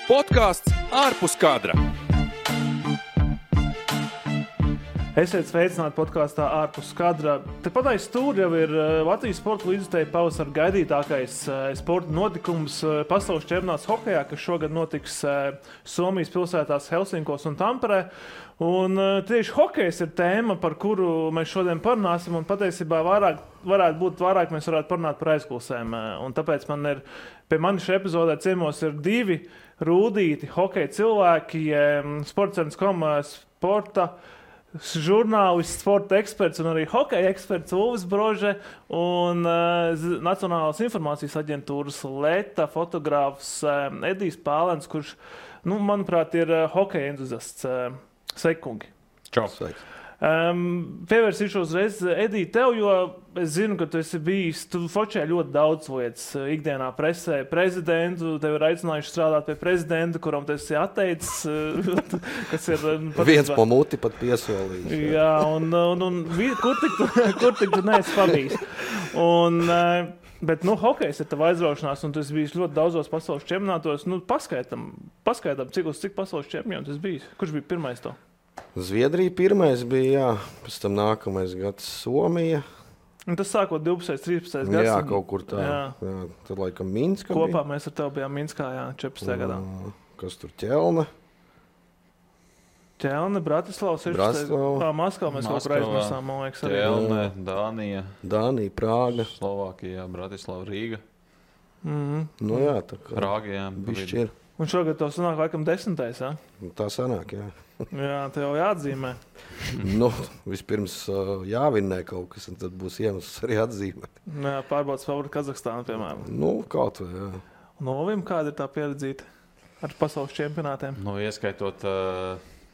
Podkāsts ārpus kadra. Esiet sveicināti podkāstā ārpus kadra. Tepat aiz stūra jau ir Latvijas sporta līdzjutēju pavasara gaidītākais sporta notikums pasaules čempionāts hokejā, kas šogad notiks Somijas pilsētās Helsinkos un Tamperē. Un tieši hokejs ir tēma, par kuru mēs šodien parunāsim, un patiesībā vairāk mēs varētu parunāt par aizkulisēm. Un tāpēc pie manis šajā epizodē ciemos ir divi rūdīti hokeja cilvēki, Sportcentrs.com sporta žurnālists, sporta eksperts un arī hokeja eksperts Ulvis Brože un Nacionālās informācijas aģentūras Leta fotogrāfs Edijs Pālens, kurš, manuprāt, ir hokeja entuziasts. Sveiki, kungi! Čau! Pievērsīšu uzreiz, Edī, tev, jo es zinu, ka tu esi bijis, tu fočē ļoti daudz lietas ikdienā presē, prezidentu, tev ir aicinājuši strādāt pie prezidenta, kuram tu esi atteicis, kas ir... Viens po muti pat piesolījis. Jā, un kur tik tu neesi pabijis? Bet, hokejs ir tava aizraušanās, un tu esi bijis ļoti daudzos pasaules čempionātos. Paskaidām, cik pasaules čempionu tu esi bijis? Kurš bija pirmais to? Zviedrija pirmais bija, jā. Pēc tam nākamais gads Somija. Un tas sākot 12. 13. gads. Jā, kaut kur tā. Jā. Tad laikam Minska kopā bija. Mēs ar tevi bijām Minskā, jā, 14. gadā. Kas tur Ķelne? Ķelne, Bratislava, 16. Maskavā mēs kaut kur aizmirsām, man liekas. Ķelne, Dānija. Dānija, Prāga. Slovākija, Bratislava, Rīga. Nu jā, tā kā. Prāga, jā. Bišķi ir. Un šogad tev sanāk laikam 10. jā? Tā sanāk, jā. Jā, tev jāatzīmē. Vispirms jāvinnē kaut kas, un tad būs iemesls arī atzīmēt. Jā, pārbaudas favorītu Kazahstānu, piemēram. Kaut vai, jā. Un Olvim, kāda ir tā pieredzīta ar pasaules čempionātiem? Ieskaitot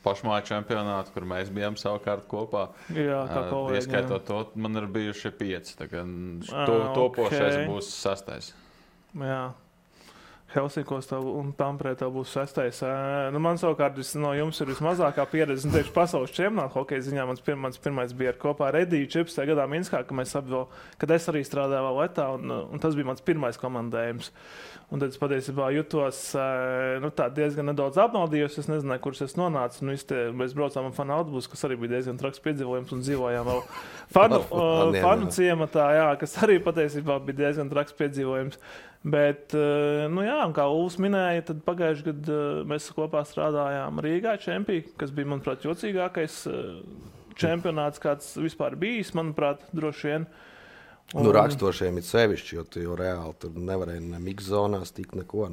pašmāju čempionātu, kur mēs bijām savukārt kopā. Jā, kā kolēģi. Ieskaitot to, man ir bijuši 5. Topošais būs 6. Jā. Helsinkos un Tamperē tev būs 6. Man savukārt no jums ir vismazākā pieredze. Tieši pasaules čempionāta hokeja ziņā mans pirmais bija kopā ar Ediju 14. gadā Minskā, kad es arī strādāju vēl Letā, un tas bija mans pirmais komandējums. Un tad es patiesībā jutos diezgan nedaudz apmaldījos. Es nezināju, kurš es nonācu. Mēs braucām ar fanu autobusu, kas arī bija diezgan traks piedzīvojums, un dzīvojām vēl fanu ciematā, jā, kas arī patiesībā bija diezgan traks piedzīvojums. Bet, kā Ulvis minēja, tad pagājuši gadu mēs kopā strādājām Rīgā čempī, kas bija, manuprāt, jocīgākais čempionāts, kāds vispār bijis, manuprāt, droši vien. Rakstošiem ir sevišķi, jo tu jau reāli tur nevarēji ne mixzonās tikt neko.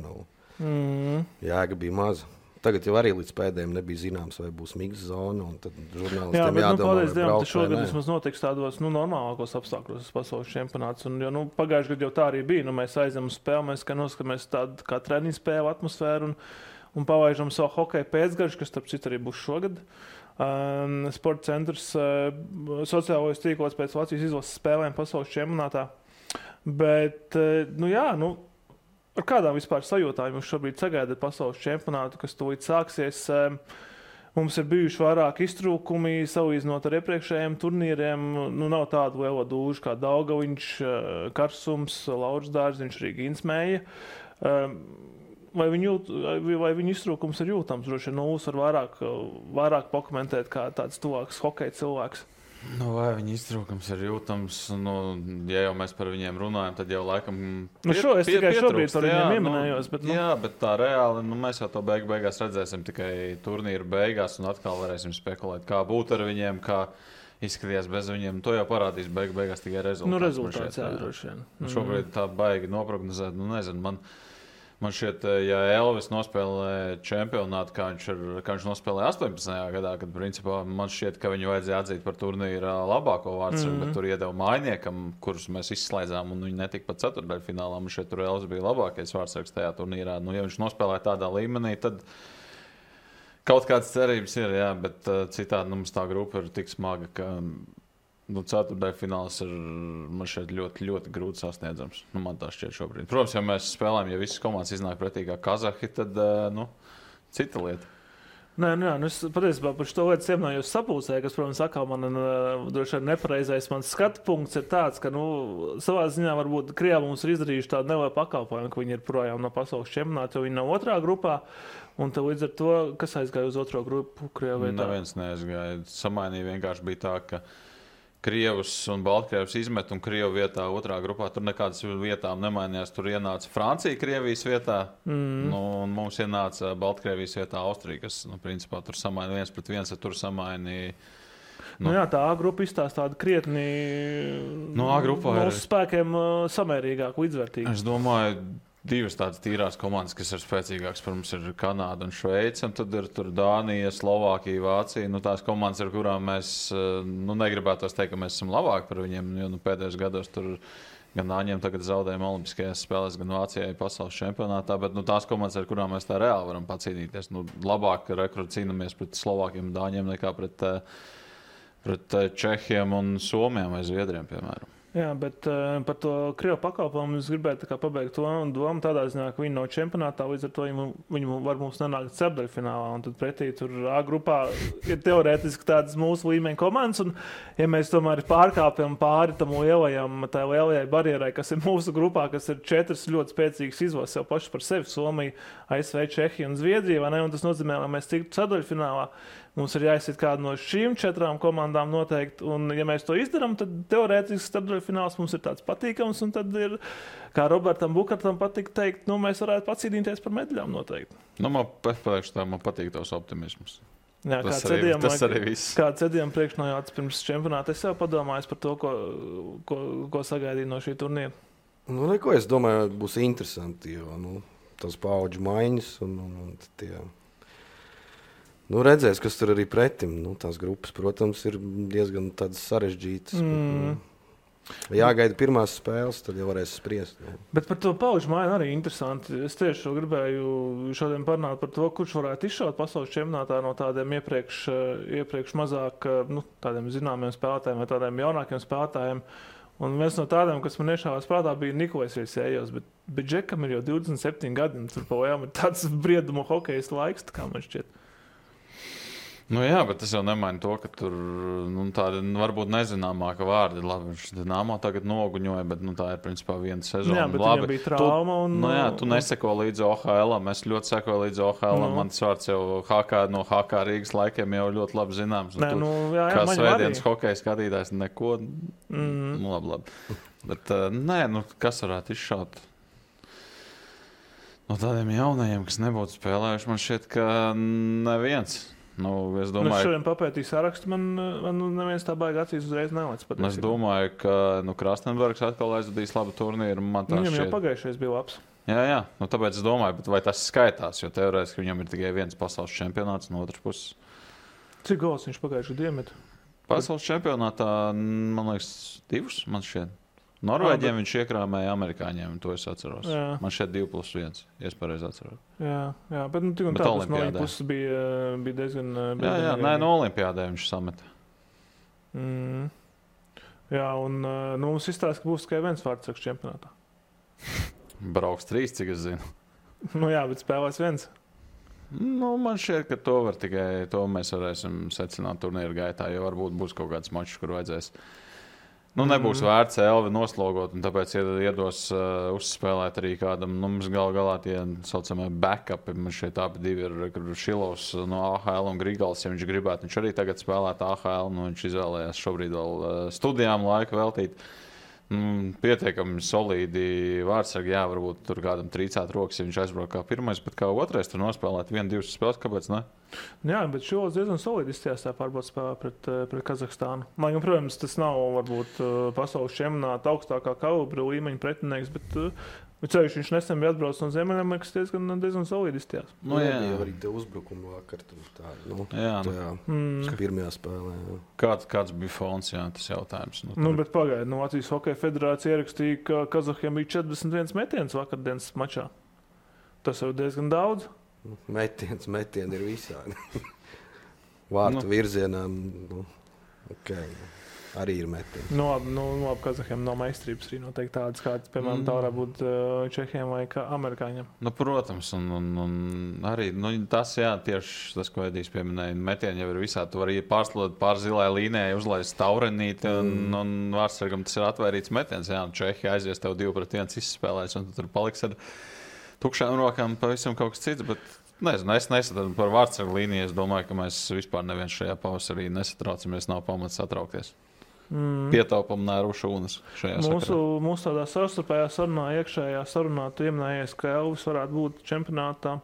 Jēga bija maza. Tagad jau arī līdz pēdējiem nebija zināms, vai būs mixzona, un tad žurnālistiem jādomā, vai braukt šogad vismaz notiks tādos normālākos apstākļos pasaules čempionāts. Un, pagājuši gadu jau tā arī bija. Mēs aizem uz spēli, mēs noskatāmies tādu kā treniņu spēlu atmosfēru un pavaižam savu hokeja pēcgaršu, kas starp citu arī būs šogad. Sporta centrs sociālajos tīklos pēc Latvijas izlases spēlēm pasaules čempionātā. Bet, ar kādām vispār sajūtām jūs šobrīd sagaidat pasaules čempionātu, kas tūlīt sāksies? Mums ir bijuši vairāk iztrūkumi, salīdzinot ar iepriekšējiem turnīriem. Nav tādu lielo dūžu kā Daugaviņš, Karsums, Lauris Dārziņš, arī Ginsmēja. Vai viņu iztrūkums ir jūtams? Droši vien Ulvis var vairāk pakomentēt kā tāds tuvāks hokeja cilvēks. Vai viņa iztrūkums ir jūtams? Ja jau mēs par viņiem runājam, tad jau laikam es tikai šobrīd par viņiem ieminējos. Jā, bet tā reāli, mēs jau to beigās redzēsim tikai turnīru beigās un atkal varēsim spekulēt, kā būt ar viņiem, kā izskatījās bez viņiem. To jau parādīs beigās tikai rezultāts. Rezultāts, jā, droši vien. Šobrīd tā baigi noprognozēt, nezinu, Man šķiet, ja Elvis nospēlē čempionātu, kā viņš nospēlē 18. gadā, kad principā man šķiet, ka viņu vajadzēja atzīt par turnīra labāko vārdsargu, bet tur iedeva mājniekam, kurus mēs izslēdzām, un viņi netika pat ceturtdaļfinālā. Man šķiet, tur Elvis bija labākais vārdsargs tajā turnīrā. Ja viņš nospēlē tādā līmenī, tad kaut kādas cerības ir, jā, bet citādi mums tā grupa ir tik smaga, ka ceturtdaļfināls ir man šeit ļoti, ļoti grūti sasniedzams. Man tā šķiet šobrīd. Protams, ja mēs spēlējam, ja visas komandas iznāk pretī kā kazahi, tad cita lieta. Nē, es patiesībā par šo lietu iemnājos sapulcē, kas, protams, atkal man droši vien nepareizais mans skatu punkts ir tāds, ka, savā ziņā varbūt Krievi mums ir izdarījuši tādu nelielu pakalpojumu, ka viņi ir projām no pasaules čempionāta, jo viņi nav otrā grupā, un tad līdz ar to, kas aizgāja uz otro grupu Krievu vietā? Neviens neaizgāja. Samainīja vienkārši bija tā, ka Krievus un Baltkrievus izmet un Krievu vietā otrā grupā. Tur nekādas vietām nemainījās. Tur ienāca Francija Krievijas vietā, un mums ienāca Baltkrievijas vietā Austrija, kas, principā, tur samainīja 1-1, tur samainīja. Jā, tā A grupa izstāsta tādu krietni mūsu spēkiem samērīgāk, līdzvērtīgi. Es domāju, divas tādas tīrās komandas, kas ir spēcīgākas, pirms ir Kanāda un Šveice, un tad ir tur Dānija, Slovākija, Vācija. Tās komandas, ar kurām mēs negribētu teikt, ka mēs esam labāki par viņiem, jo pēdējos gados tur gan Dāņiem tagad zaudējumi Olimpiskajās spēlēs, gan Vācijai pasaules čempionātā, bet tās komandas, ar kurām mēs tā reāli varam pacīnīties, labāk cīnāmies pret Slovākiem un Dāņiem nekā pret Čehiem un Somiem vai Zviedriem, piemēram. Jā, bet par to Krievu pakalpojumu es gribētu pabeigt to domu tādā ziņā, ka viņi nav čempionātā, līdz ar to viņi var mums nenākt ceturtdaļfinālā, un tad pretī tur A grupā ir teorētiski tādas mūsu līmeņa komandas, un ja mēs tomēr pārkāpjam pāri tam lielajai barjerai, kas ir mūsu grupā, kas ir 4 ļoti spēcīgas izvases jau paši par sevi, Somija, ASV, Čehija un Zviedrija, vai ne, un tas nozīmē, lai mēs tiktu ceturtdaļfinālā. Mums ir jāizsit kādu no šīm 4 komandām noteikti, un ja mēs to izdarām, tad teorētiski ceturtdaļfināls mums ir tāds patīkams, un tad ir, kā Robertam Bukartam patīk teikt, mēs varētu pacīnīties par medaļām noteikti. Man patīk tavs optimisms. Jā, tas arī viss. Kāds cedījām priekšnojāts pirms čempionāta, es jau padomāju par to, ko sagaidīju no šī turnīra. Neko, es domāju, būs interesanti, jo tas paudžu maiņas un tie... redzēs, kas tur arī pretim. Tās grupas, protams, ir diezgan tādas sarežģītas. Jāgaida pirmās spēles, tad jau varēs spriest. Bet par to pauģu maiņu arī interesanti. Es tieši gribēju šodien parunāt par to, kurš varētu izšaut pasaules čempionātā no tādiem iepriekš mazāk tādiem zināmiem spēlētājiem vai tādiem jaunākiem spēlētājiem. Un viens no tādiem, kas man iešāvās prātā, bija Nikolais Riesējos, bet Džekam ir jau 27 gadi, un tur pojām ir tāds briedumu hokejas laiks, kā man šķiet. Jā, bet tas jau nemaina to, ka tur tādi varbūt nezināmāka vārdi. Labi, viņš Dinamo tagad noguņoja, bet tā ir principā viena sezona. Jā, bet viņam bija trauma. Tu neseko līdzi OHL-am. Es ļoti sekoju līdzi OHL-am. Mans vārds jau no HK Rīgas laikiem jau ļoti labi zināms. Kā svētdienas hokeja skatītājs, neko. Labi. Bet kas varētu izšaut? No tādiem jaunajiem, kas nebūtu spēlējuši, man šķiet, ka neviens. Es domāju, es šodien papētīju sarakstu, man neviens tā baigi acīs uzreiz nelaic. Es domāju, ka Krastenbergs atkal aizvadīs labu turnīru. Viņam jau pagājušais bija labs. Jā. Tāpēc es domāju, vai tas skaitās, jo teorētiski viņam ir tikai viens pasaules čempionāts no otras puses. Cik gols viņš pagājušajā diemet? Pasaules čempionātā, man liekas, 2, man šķiet. Norvēģiem viņš iekrāmēja amerikāņiem, to es atceros. Jā. Man šeit 2+1, ja es pareizi atceros. Jā, bet tik un tā, tas no viņa puses bija diezgan... Jā, no olimpiādē viņš sameta. Jā, un mums izstāsta, ka būs tikai viens vārdsargs čempionātā. Brauks 3, cik es zinu. Jā, bet spēlēs viens. Man šķiet, ka to mēs varēsim secināt turnīru gaitā, jo varbūt būs kaut kāds mačs, kur vajadzēs. Nebūs vērts Elvi noslogot, un tāpēc iedos uzspēlēt arī kādam. Mums galā tie saucamie backupi. Man šeit abi divi ir Šilovs no AHL un Grigals, ja viņš gribētu. Viņš arī tagad spēlēt AHL, viņš izvēlējās šobrīd vēl studijām laiku veltīt. Pietiekami solīdi vārdsargi, jā, varbūt tur kādam trīcāt rokas, ja viņš aizbrauc kā pirmais, bet kā otrais tur nospēlēt 1-2 spēles, kāpēc ne? Jā, bet šos diezgan solīdi izstījās tā pārbaudas spēlē pret Kazahstānu. Lai gan, protams, tas nav varbūt pasaules čempionāta augstākā kalibra līmeņa pretinieks, bet ceļš viņš nesen bija atbraucis no Ziemeļamerikas diezgan solīdi izstījās. Jā, arī te uzbrukumu vakar tur tā, pirmajā spēlē. Kāds bija fons, jā, tas jautājums? Bet pagaidi, Latvijas Hokeja federācija ierakstīja, ka Kazahiem bija 41 metiens vakardienas mačā. Tas jau diezgan daudz. Metieni ir visādi. Vārtu virzienā. Okay. arī ir metieni. No Kazahiem nav meistarības arī noteikti tādas, kādas, piemēram, tā varētu būt Čehiem vai amerikāņiem. Nu, protams, un arī tas, jā, tieši tas, ko Edijs pieminēja, metieni jau ir visā. Tu vari pārslot pār zilai līnijai, uzlaist taurenīti, un vārdsargam tas ir atvērīts metiens. Jā, un Čehi aizies tev 2-1 izspēlēs, un tu tur paliks ar tukšām rokām pavisam kaut kas cits, bet nezinu, es nesatu par vārdsargu līniju. Es domāju, ka mēs vispār neviens šajā pavasarī nesatraucamies, nav pamats satraukties. Pietaupam nēru šūnas šajā sakarā. Mūsu tādā savstarpējā sarunā, iekšējā sarunā, tu ieminējies, ka Elvis varētu būt čempionātā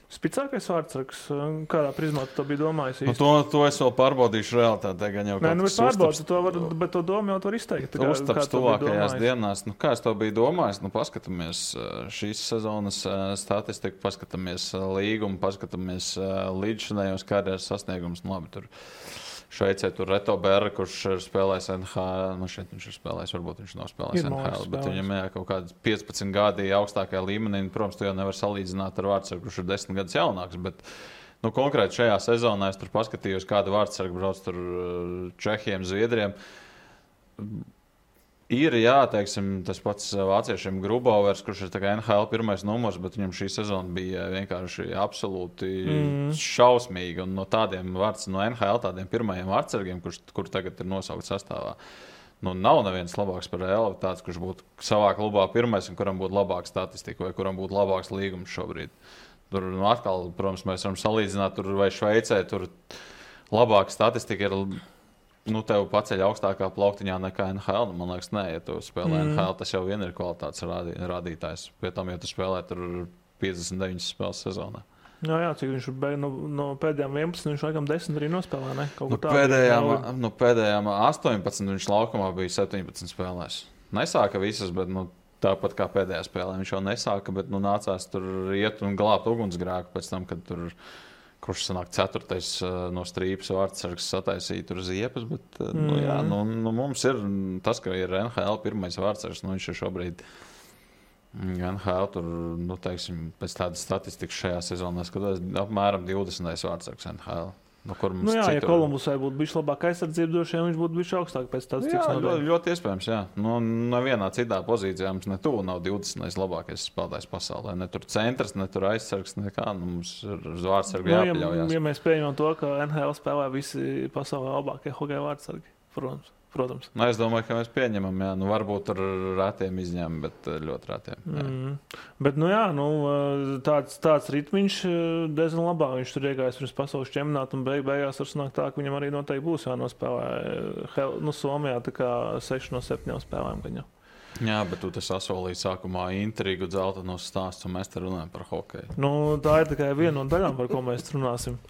spicākais vārdsargs. Kādā prizmā tu to biji domājis? To es vēl pārbaudīšu realitātē. Nē, pārbaudīšu, bet to domu jau tu vari izteikt. Uztaps tuvākajās dienās. Kā es to biju domājis? Paskatāmies šīs sezonas statistiku, paskatāmies līgumu, paskatāmies līdzšinējos karjeras sasniegumus. Labi, tur Šveicē tur Reto Berra, kurš ir spēlējis NHL. Šeit viņš ir spēlējis, varbūt viņš nav spēlējis NHL, bet viņam ir kaut kādi 15 gadi augstākajā līmenī. Protams, tu jau nevar salīdzināt ar vārdsargu, kurš ir 10 gadus jaunāks. Bet, konkrēti šajā sezonā es tur paskatījos, kāda vārdsarga brauc tur Čehiem, Zviedriem. Ir, jā, teiksim, tas pats vāciešiem Grubauers, kurš ir NHL pirmais numurs, bet viņam šī sezona bija vienkārši absolūti šausmīga. Un no tādiem no NHL tādiem pirmajiem vārdsargiem, kur tagad ir nosaukt sastāvā, nav neviens labāks par Elvi, tāds, kurš būtu savā klubā pirmais un kuram būtu labāka statistika vai kuram būtu labāks līgums šobrīd. Tur atkal, protams, mēs varam salīdzināt tur vai Šveicē, tur labāka statistika ir. Tev paceļ augstākā plauktiņā nekā NHL. Man liekas, nē, ja tu spēlē NHL, tas jau vien ir kvalitātes rādītājs. Pie tam, ja tu spēlē tur 59 spēles sezonā. Jā, cik viņš no pēdējām 11, viņš laikam 10 arī nospēlē, ne? Pēdējām 18 viņš laukumā bija 17 spēlēs. Nesāka visas, bet tāpat kā pēdējā spēlē. Viņš jau nesāka, bet nācās tur iet un glābt ugunsgrēku pēc tam, kad tur kurš sanāk 4. no strīpas vārdsargs sataisīja tur ziepes, bet mums ir tas, ka ir NHL pirmais vārdsargs, viņš ir šobrīd NHL tur, teiksim, pēc tādas statistikas šajā sezonā skatos apmēram 20. vārdsargs NHL. Ja Kolumbusai būtu bijis labāk aizsardzība, droši vien viņš būtu bijis augstāk pēc tādas citas nodaļas. Ļoti iespējams, jā. Nevienā citā pozīcijā mums ne tuvu nav 20. labākais spēlētājs pasaulē. Ne tur centrs, ne tur aizsargs, nekā. Mums ir uz vārdsargu jāpaļaujās. Ja mēs pieņemam to, ka NHL spēlē visi pasaulē labākie hokeja vārdsargi, protams. Es domāju, ka mēs pieņemam, jā. Varbūt tur rētiem izņēmumi, bet ļoti rētiem. Bet, tāds ritmiņš diezgan labā. Viņš tur iegājis pirms pasaules čempionāta un beigās var sanākt tā, ka viņam arī noteikti būs jānospēlē. Somijā tā kā 6 no 7 spēlēm gaņā. Jā, bet tu sasolīji sākumā intrigu, dzeltenos stāsts, un mēs te runājam par hokeju. Tā ir tikai viena no daļām, par ko mēs runāsim.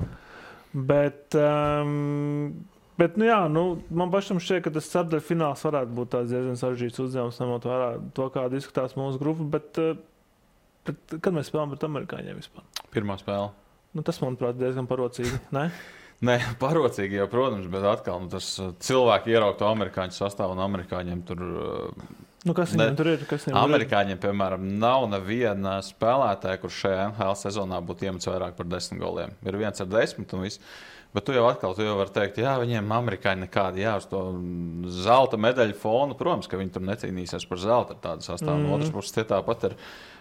Bet man pašam šķiet, ka tas ceturdaļu fināls varētu būt tāds diezgan sarežģīts uzdevums, ņemot vērā to, kā izskatās mūsu grupa, bet kad mēs spēlējam pret amerikāņiem vispār? Pirmā spēle. Tas, manuprāt, diezgan parocīgi, ne? Nē, parocīgi jau, protams, bet atkal tas cilvēki ieraugt to amerikāņu sastāvu un amerikāņiem tur... Kas viņiem tur ir? Amerikāņiem, piemēram, nav neviena spēlētāja, kurš šajā NHL sezonā būtu iemetis vairāk par 10 goliem. Ir viens ar 10 un viss. Bet tu jau vari teikt, jā, viņiem amerikāņi nekādi, jā, uz to zelta medaļu fonu. Protams, ka viņi tur necīnīsies par zelta ar tādu sastāvu. No otras puses, tie tāpat ir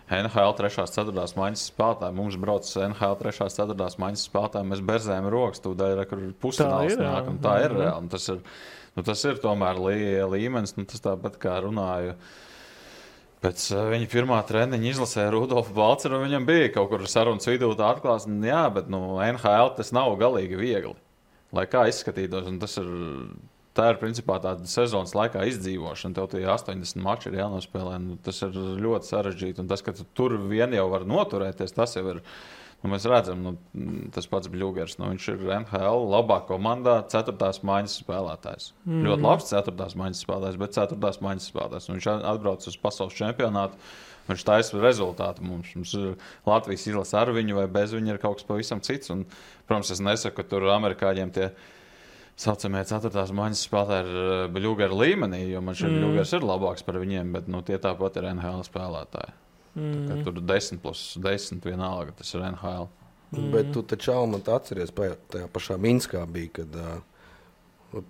NHL 3.4. maiņas spēlētāji. Mums brauc NHL 3.4. maiņas spēlētāji. Mēs berzējam rokas, tūdaļ, kur pusfināls nāk. Tā ir reāli. Tas ir tomēr līmenis. Tas tāpat kā runāju. Pēc viņa pirmā treniņa izlasēja Rudolfu Balceru, un viņam bija kaut kur sarunas vidū tā atklāsme. Jā, bet NHL tas nav galīgi viegli, lai kā izskatītos. Tā ir principā tāda sezonas laikā izdzīvošana. Tev tie 80 mači ir jānospēlē. Tas ir ļoti sarežģīti. Un tas, ka tu tur vien jau var noturēties, tas jau ir. Mēs redzam, tas pats Bļūgers. Viņš ir NHL labā komandā, 4. maiņas spēlētājs. Ļoti labs 4. maiņas spēlētājs, bet 4. maiņas spēlētājs. Viņš atbrauc uz pasaules čempionātu. Viņš taisa rezultātu mums. Mums Latvijas izlase ar viņu vai bez viņa ir kaut kas pavisam cits. Un, protams, es nesaku, ka tur amerikāņiem tie saucamie 4. maiņas spēlētāji ir Bļūgera līmenī, jo man šeit Bļūgers ir labāks par viņiem, bet tie tāpat ir NHL spēlētāji. Tur 10+10 vienalga, tas ir NHL. Bet tu taču, man atceries, tajā pašā Minskā bija, kad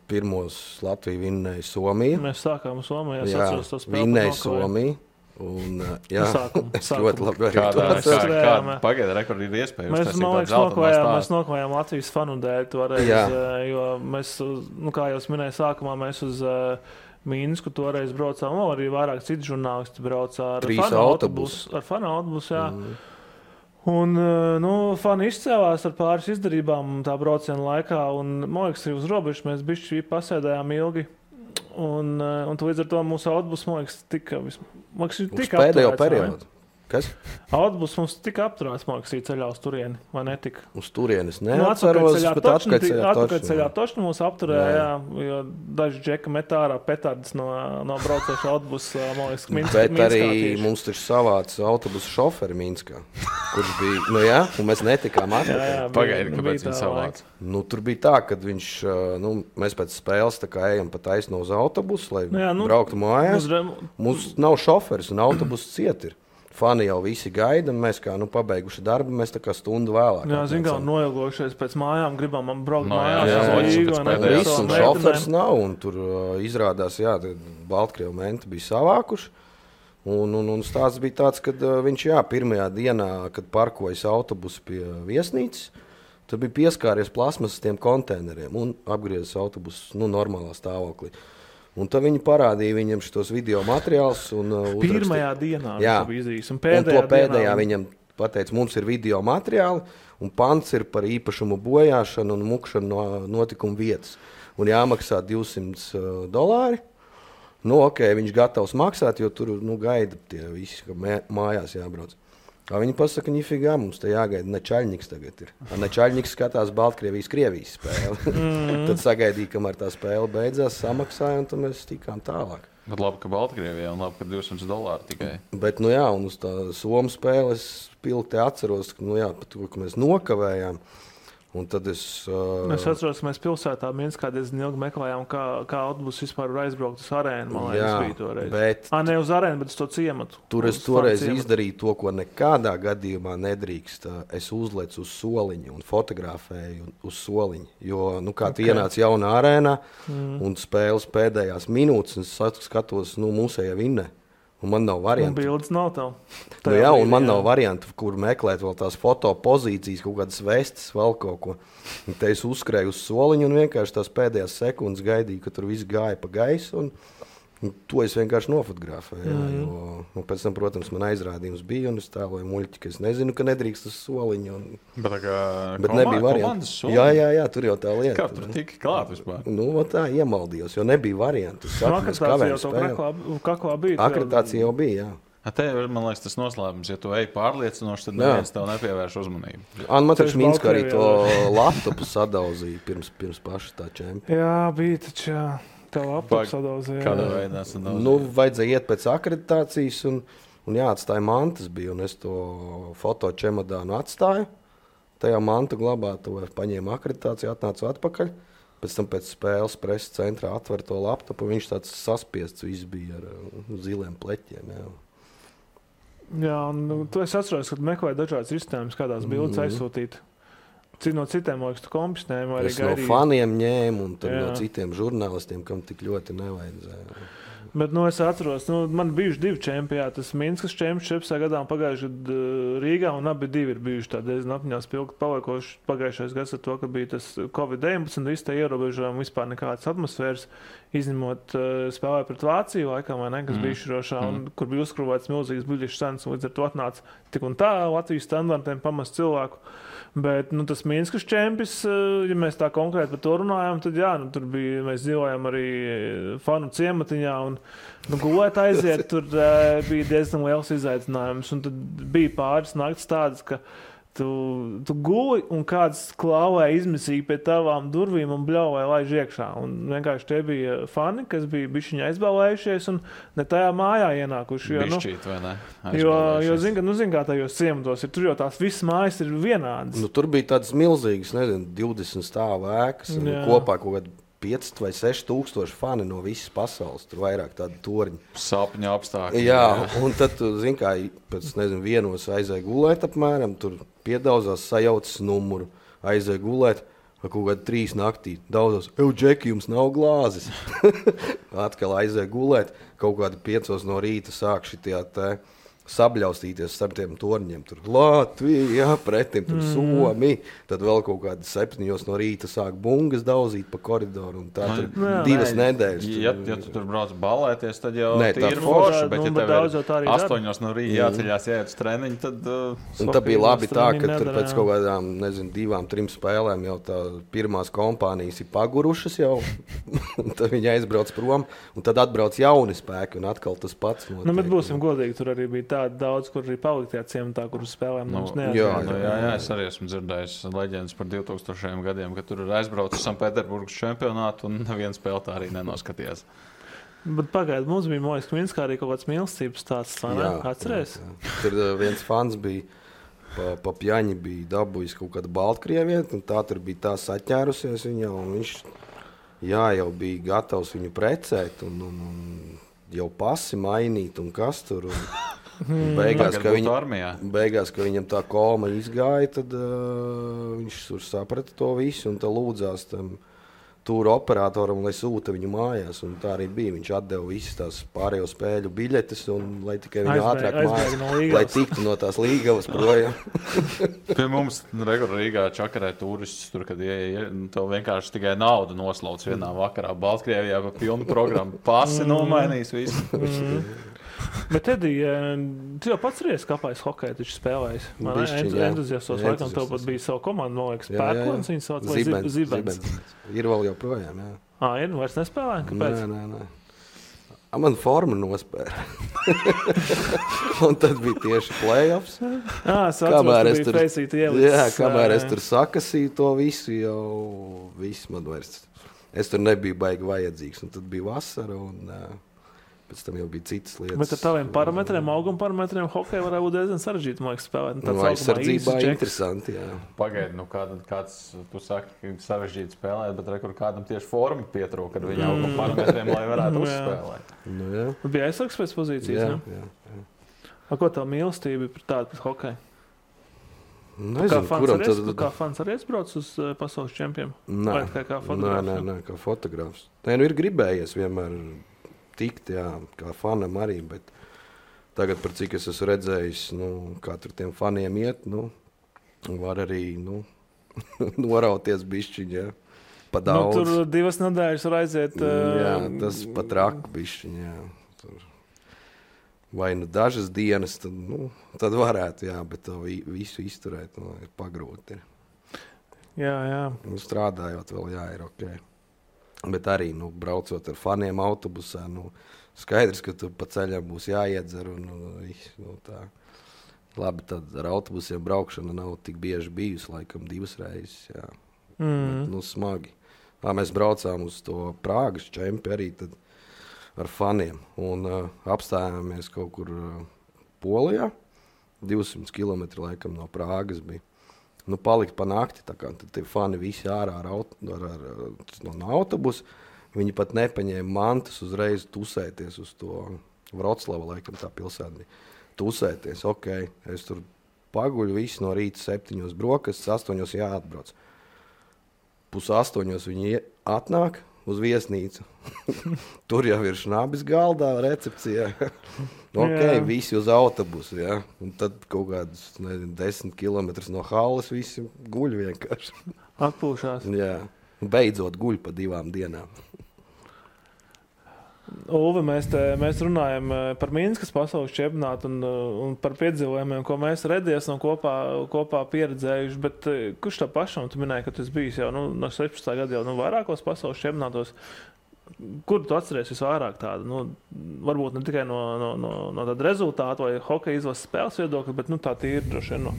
Pirmos Latviju vinnēja Somija. Mēs sākām Somijā. Jā, vinnēja Somija. Un, jā, es ļoti labi arī kāda pagaida rekordi ir iespēja. Mēs nokavējām Latvijas fanu dēļ toreiz, jo mēs, kā jau minēju sākumā, mēs uz Minsku toreiz braucām, arī vairāk citu žurnālisti braucā ar fanu autobusu, jā. Un, fani izcēlās ar pāris izdarībām tā brauciena laikā, un, man liekas, arī uz robežas mēs bišķi pasēdējām ilgi. Un līdz ar to mūsu autobus, man liekas, tika pēdējo periodu. Kas? Autobus mums tika apturēts, man liekas, ceļā uz turieni, vai netika? Uz turienes neatceros, bet atpakaļceļā tošņi mūs apturēja, jo daži džeka metā ārā petardas no braucoša autobusa, man liekas, Minskā. Bet arī mums taču savāca autobusa šoferi Minskā, kurš bija, un mēs netikām atpakaļ. Pagaidi, kāpēc viņi savāca? Tur bija tā, kad viņš, mēs pēc spēles tā kā ejam pa taisno uz autobusu, lai brauktu mājās. Mums nav šoferis un autobuss ciet ir. Fani jau visi gaida, un mēs kā pabeiguši darbu, mēs tā kā stundu vēlāk. Jā, kā noilgojušies pēc mājām, gribam braukt mājās. Viss, un šofers nav, un tur izrādās, Baltkrievu menti bija savākuši. Un stāsts bija tāds, ka viņš, pirmajā dienā, kad parkojas autobusu pie viesnīcas, tad bija pieskāries plasmasas tiem konteineriem un apgriezis autobusu, normālā stāvoklī. Un tad viņi parādīja viņam šitos video materiālus. Pirmajā dienā viņš bija izdarījis. Un pēdējā viņam pateica, mums ir video materiāli, un pants ir par īpašumu bojāšanu un mukšanu no notikuma vietas. Un jāmaksā $200. Viņš gatavs maksāt, jo tur gaida tie visi, ka mājās jābrauc. Viņi pasaka, nifigā, mums te jāgaida Nečaļņiks tagad ir. Nečaļņiks skatās Baltkrievijas spēli. Tad sagaidīja, kamēr tā spēle beidzās, samaksāja, un tad mēs tikām tālāk. Bet labi, ka Baltkrievijā un labi, ka $200 tikai. Bet, un uz tā Somu spēle es pilti atceros, par to, ka mēs nokavējām. Un tad es atceros, ka mēs pilsētā Minskā diezgan ilgi meklējām, kā autobus vispār var aizbraukt uz arēnu. Man liekas, bija toreiz. Ne uz arēnu, bet uz to ciematu. Tur es toreiz izdarīju to, ko nekādā gadījumā nedrīkst. Es uzlecu uz soliņu un fotografēju uz soliņu. Jo, tu ienāc jaunā arēnā un spēles pēdējās minūtes, un es skatos, mūsējā vinnē. Un man nav variantu. Un bildes nav tev. Un man nav variantu, kur meklēt vēl tās fotopozīcijas, kaut kādas vestes, vēl kaut ko. Un te es uzskrēju uz soliņu un vienkārši tās pēdējās sekundes gaidīju, ka tur viss gāja pa gaisu. Un to es vienkārši nofotografēju. Jo pēc tam, protams, man aizrādījums bija, un es tēloju muļķi, ka es nezinu, ka nedrīkst uz soliņu. Bet nebija variantu. Jā, tur jau tā lieta. Kā tur tika klāt vispār? Tā iemaldījos, jo nebija variantu. Akreditācija jau bija, jā. Te, man liekas, tas noslēpums, ja tu ej pārliecinoši, tad neviens tev nepievērš uzmanību. Man taču Minskā arī to laptopu sadauzīja pirms paša tā čempiona. Jā, bija taču, jā. Kādā veidā vajadzēja iet pēc akreditācijas un jāatstāja mantas bija, un es to fotočemodānu atstāju. Tajā mantu glabātuvē paņēmu akreditāciju, atnācu atpakaļ. Pēc tam pēc spēles preses centrā atver to laptopu, viņš tāds saspiests viss bija ar ziliem pleķiem. Jā, un tu esi atceros, ka meklēji dažādas risinājumus, kādās bildes aizsūtīt. No citiem, liekas, tu kompisnēm vai arī gaidīji? Es no faniem ņēmu un no citiem žurnālistiem, kam tik ļoti nevajadzēja. Bet es atceros, man bijuši 2 čempioni. Tas Minskas čempions gadā un pagājušajā gadā Rīgā, un abi divi ir bijuši tādi diezgan apņās pilgi paliekoši. Pagājušais gads ar to, ka bija tas Covid-19, visi tie ierobežojumi, vispār nekādas atmosfēras, izņemot spēlē pret Vāciju laikam, vai ne, kas bija izšķirošā, un kur bija uzkrūvēts milzīgas biļešu cenas, un līdz ar to atnāca tik un tā Latvijas standartiem pamest cilvēku. Bet tas Minskas čempions, ja mēs tā konkrēti par to runājam, tad tur bija, mēs dzīvojam arī fanu ciematiņā un gulēt aiziet, tur bija diezgan liels izaicinājums. Un tad bija pāris naktis tādas, ka tu guli un kāds klāvēja izmisīgi pie tavām durvīm un bļauvēja laiž iekšā. Un vienkārši tie bija fani, kas bija bišķiņi aizbēlējušies un ne tajā mājā ienākuši. Bišķīt, vai ne? Jo zin kā tajos ciematos ir, tur jau tās visas mājas ir vienādas. Tur bija tādas milzīgas, 20 stāvu ēkas, kopā kaut kāda 5 vai 6 tūkstoši fani no visas pasaules, tur vairāk tādu torņu. Sapņu apstākļi. Jā, un tad, kā pēc, vienos aizēja gulēt apmēram, tur piedauzās, sajaucas numuru, aizēja gulēt, Kaut kādā 3 naktī daudzos, Džeki, jums nav glāzes. Atkal aizēja gulēt, kaut kādi 5 no rīta sāk šitie sabļaustīties starp tiem torņiem. Tur Latvija, pretim tur Somi. Tad vēl kaut kādi 7 no rīta sāk bungas daudzīt pa koridoru. Un tā tur 2 nedēļas. Ja tu tur brauc balēties, tad jau ir forši. Bet ja tev ir 8 no rīta jāceļās, jāiet uz treniņu, tad... Un tā bija labi tā, ka tur pēc kaut kādām, 2-3 spēlēm jau tā pirmās kompānijas ir pagurušas jau. Un tad viņi aizbrauc prom. Un tad atbrauc jauni spēki un atkal tas pats notiek. Bet būsim godīgi, tur arī bija daudz, kur arī palikt tajā ciematā, kur spēlēm mums neatzīst. Jā, es arī esmu dzirdējis leģendas par 2000 gadiem, ka tur ir aizbraucis Sanktpēterburgas čempionātu un neviens spēle tā arī nenoskatījās. Bet pagaidi, mums bija Mojas Kminskā arī kaut kāds mīlestības stāsts, vai ne? Atceries? Jā. Tur viens fans bija, pa pjaņi bija dabūjis kaut kādu Baltkrievieti, un tā tur bija tā saķērusies viņa, un viņš jau bija gatavs viņu precēt, un jau pasi mainīt, un kas tur... Beigās, ka viņam tā koma izgāja, tad viņš tur saprata to visu un tā lūdzās tam tūru operatoram, lai sūta viņu mājās. Un tā arī bija. Viņš atdeva visas tās pārējo spēļu biļetes, un lai tikai viņu ātrāk mājās, lai tiktu no tās Līgavas projām. Pie mums Rīgā čakarē turistus, tur, kad tev vienkārši tikai naudu noslauc vienā vakarā. Baltkrievijā pa pilnu programmu pasi nomainīs visu. Bet, Edija, tu jau pats reiz kāpājis hokeju, taču spēlējis. Entuziastos laikam tev pat bija savu komandu, man liekas, Pērkons, viņas sauc, vai Zibens. Ir vēl joprojām, jā. Ir, vairs nespēlē? Kāpēc? Nē. Man forma nospēra. Un tad bija tieši play-offs. Kamēr es tur feisītu ielicis. Jā, kamēr es tur sakasīju to visu, jau viss man vairs. Es tur nebiju baigi vajadzīgs, un tad bija vasara, un... Pēc tam jau bija citas lietas. Bet ar taviem parametriem, auguma parametriem, hokeja varētu būt diezgan sarežģīti, man liekas, spēlēt. Aizsardzībā interesanti, jā. Pagaidi, kāds, tu saki, sarežģīti spēlēt, bet rekur kādam tieši forma pietrūka, kad viņa auguma parametriem, lai varētu uzspēlēt. Bija aizsargs pēc pozīcijas, ne? Jā. Ko tev mīlestība ir tāda pēc hokeja? Nezinu, kā fans arī aizbrauc uz pasaules čempiem? Nē, kā fotogrāfs. Ir gribējies vienmēr tikt, jā, kā fanam arī, bet tagad, par cik es esmu redzējis, kā tur tiem faniem iet, var arī, norauties bišķiņ, jā, pa daudz. Tur 2 nedēļas var aiziet. Jā, tas pat raka bišķiņ, jā. Tur. Vai dažas dienas, tad varētu, jā, bet to visu izturēt, ir pagrūti. Jā. Strādājot vēl, jā, ir ok. Bet arī, braucot ar faniem autobusā, skaidrs, ka tu pa ceļam būs jāiedzer un tā. Labi, tad ar autobusiem braukšana nav tik bieži bijusi, laikam 2 reizes, jā. Bet, smagi. Mēs braucām uz to Prāgas čempi arī tad ar faniem un apstājāmies kaut kur Polijā, 200 kilometri laikam no Prāgas bija. Palikt pa nakti, tā kā tad tie fani visi ārā no autobusa. Viņi pat nepaņēma mantas uzreiz tusēties uz to Vroclava, laikam tā pilsēta bija. Tusēties, ok, es tur paguļu visu no rīta 7 brokastis, 8 jāatbrauc. 7:30 viņi atnāk uz viesnīcu. Tur jau ir šnabis galdā, recepcijā. Visi uz autobusu, jā. Un tad kaut kādus, 10 kilometrus no halles visi guļ vienkārši. Atpūšās. Jā. Beidzot guļ pa 2 dienām. Ulve, mēs runājam par Minskas pasaules čempionātu un par piedzīvojumiem, ko mēs redzējām un kopā pieredzējuši, bet kurš tā pašam, tu minēji, ka tu esi bijis jau no 16. gada jau vairākos pasaules čempionātos. Kur tu atceries visvairāk tādu? Varbūt ne tikai no tāda rezultāta vai hokeja izlases spēles viedokļa, bet tā tīri droši vien no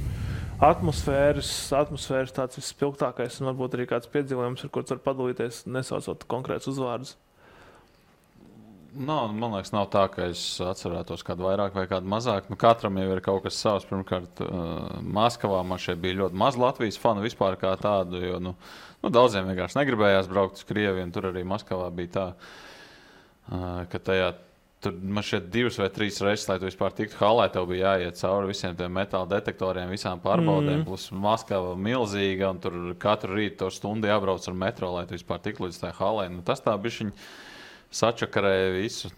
atmosfēras tāds vispilgtākais un varbūt arī kāds piedzīvojums, ar ko tu vari padalīties, nesaucot konkrētus uzvārdus. Man liekas, nav tā, ka es atcerētos kādu vairāk vai kādu mazāk. Katram jau ir kaut kas savs. Pirmkārt, Maskavā man šeit bija ļoti maz Latvijas fanu vispār kā tādu, jo daudziem vienkārši negribējās braukt uz Krieviju. Tur arī Maskavā bija tā, ka tajā Tur man šeit 2 vai 3 reizes, lai tu vispār tiktu halē, tev bija jāiet cauri visiem tiem metāla detektoriem, visām pārbaudēm, plus Maskava milzīga, un tur katru rītu to stundu jābrauc ar metro, lai tu vispār tiktu līdz tā halē. Nu, tas tā bišķiņ sačakarēja visu.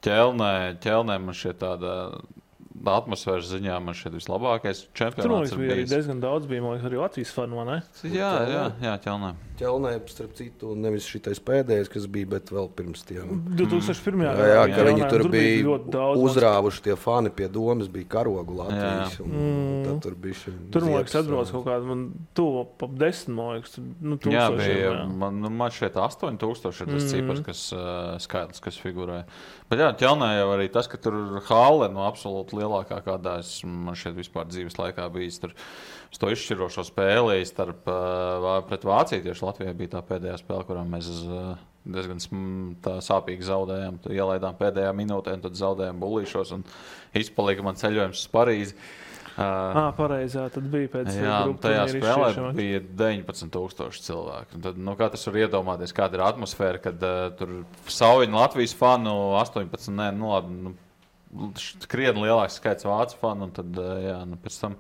Ķelnē man šeit tāda atmosfēras ziņā man šeit vislabākais čempionāts ir bijis. Tur arī diezgan daudz bija, man liekas, arī Latvijas fanu, vai ne? Jā, Ķelnē. Ķelnē, starp citu, nevis šitais pēdējais, kas bija, bet vēl pirms tiem. 2001. Jā, ka viņi tur bija uzrāvuši tie fani pie domas, bija karogu Latvijas. Tad tur bija tur, man liekas, atbrauc kaut kādu, man tuvu ap 10, man liekas, jā, bija, man šeit 8000 ir tas cipars, kas skaidrs, kas figurē. Bet jā, Ķelnē jau arī tas, ka tur hāle, absolūti lielākā kādā man šeit vispār dzīves laikā bijis. Tur to izšķirošo spēli pret Vāciju. Tieši Latvijā bija tā pēdējā spēle, kurā mēs diezgan sāpīgi zaudējām. Ielaidām pēdējā minūtē, un tad zaudējām bullīšos, un izpalika man ceļojums uz Parīzi. Pareizā, tad bija pēc tajā spēlē bija 19,000 cilvēku. Un tad, katrs var iedomāties, kāda ir atmosfēra, kad tur saujiņa Latvijas fanu 18, krietni lielāks skaits vācu fanu, un tad, pēc tam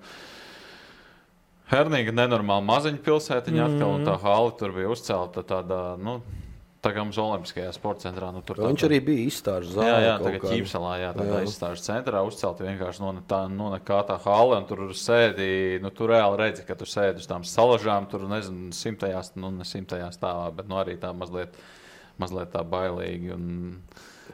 Hernīga nenormāli maziņa pilsētiņa atkal, un tā hāli tur bija uzcelta tādā, tā kā mums Olimpiskajā sporta centrā. Viņš arī bija izstāžu zālē. Jā, tagad Ķīpsalā, tādā izstāžu centrā uzcelta vienkārši nekā tā hāle, un tur sēdi, tu reāli redzi, ka tu sēdi uz tām salažām, tur, nezinu, 100. Ne 100. stāvā, bet arī tā mazliet tā bailīgi.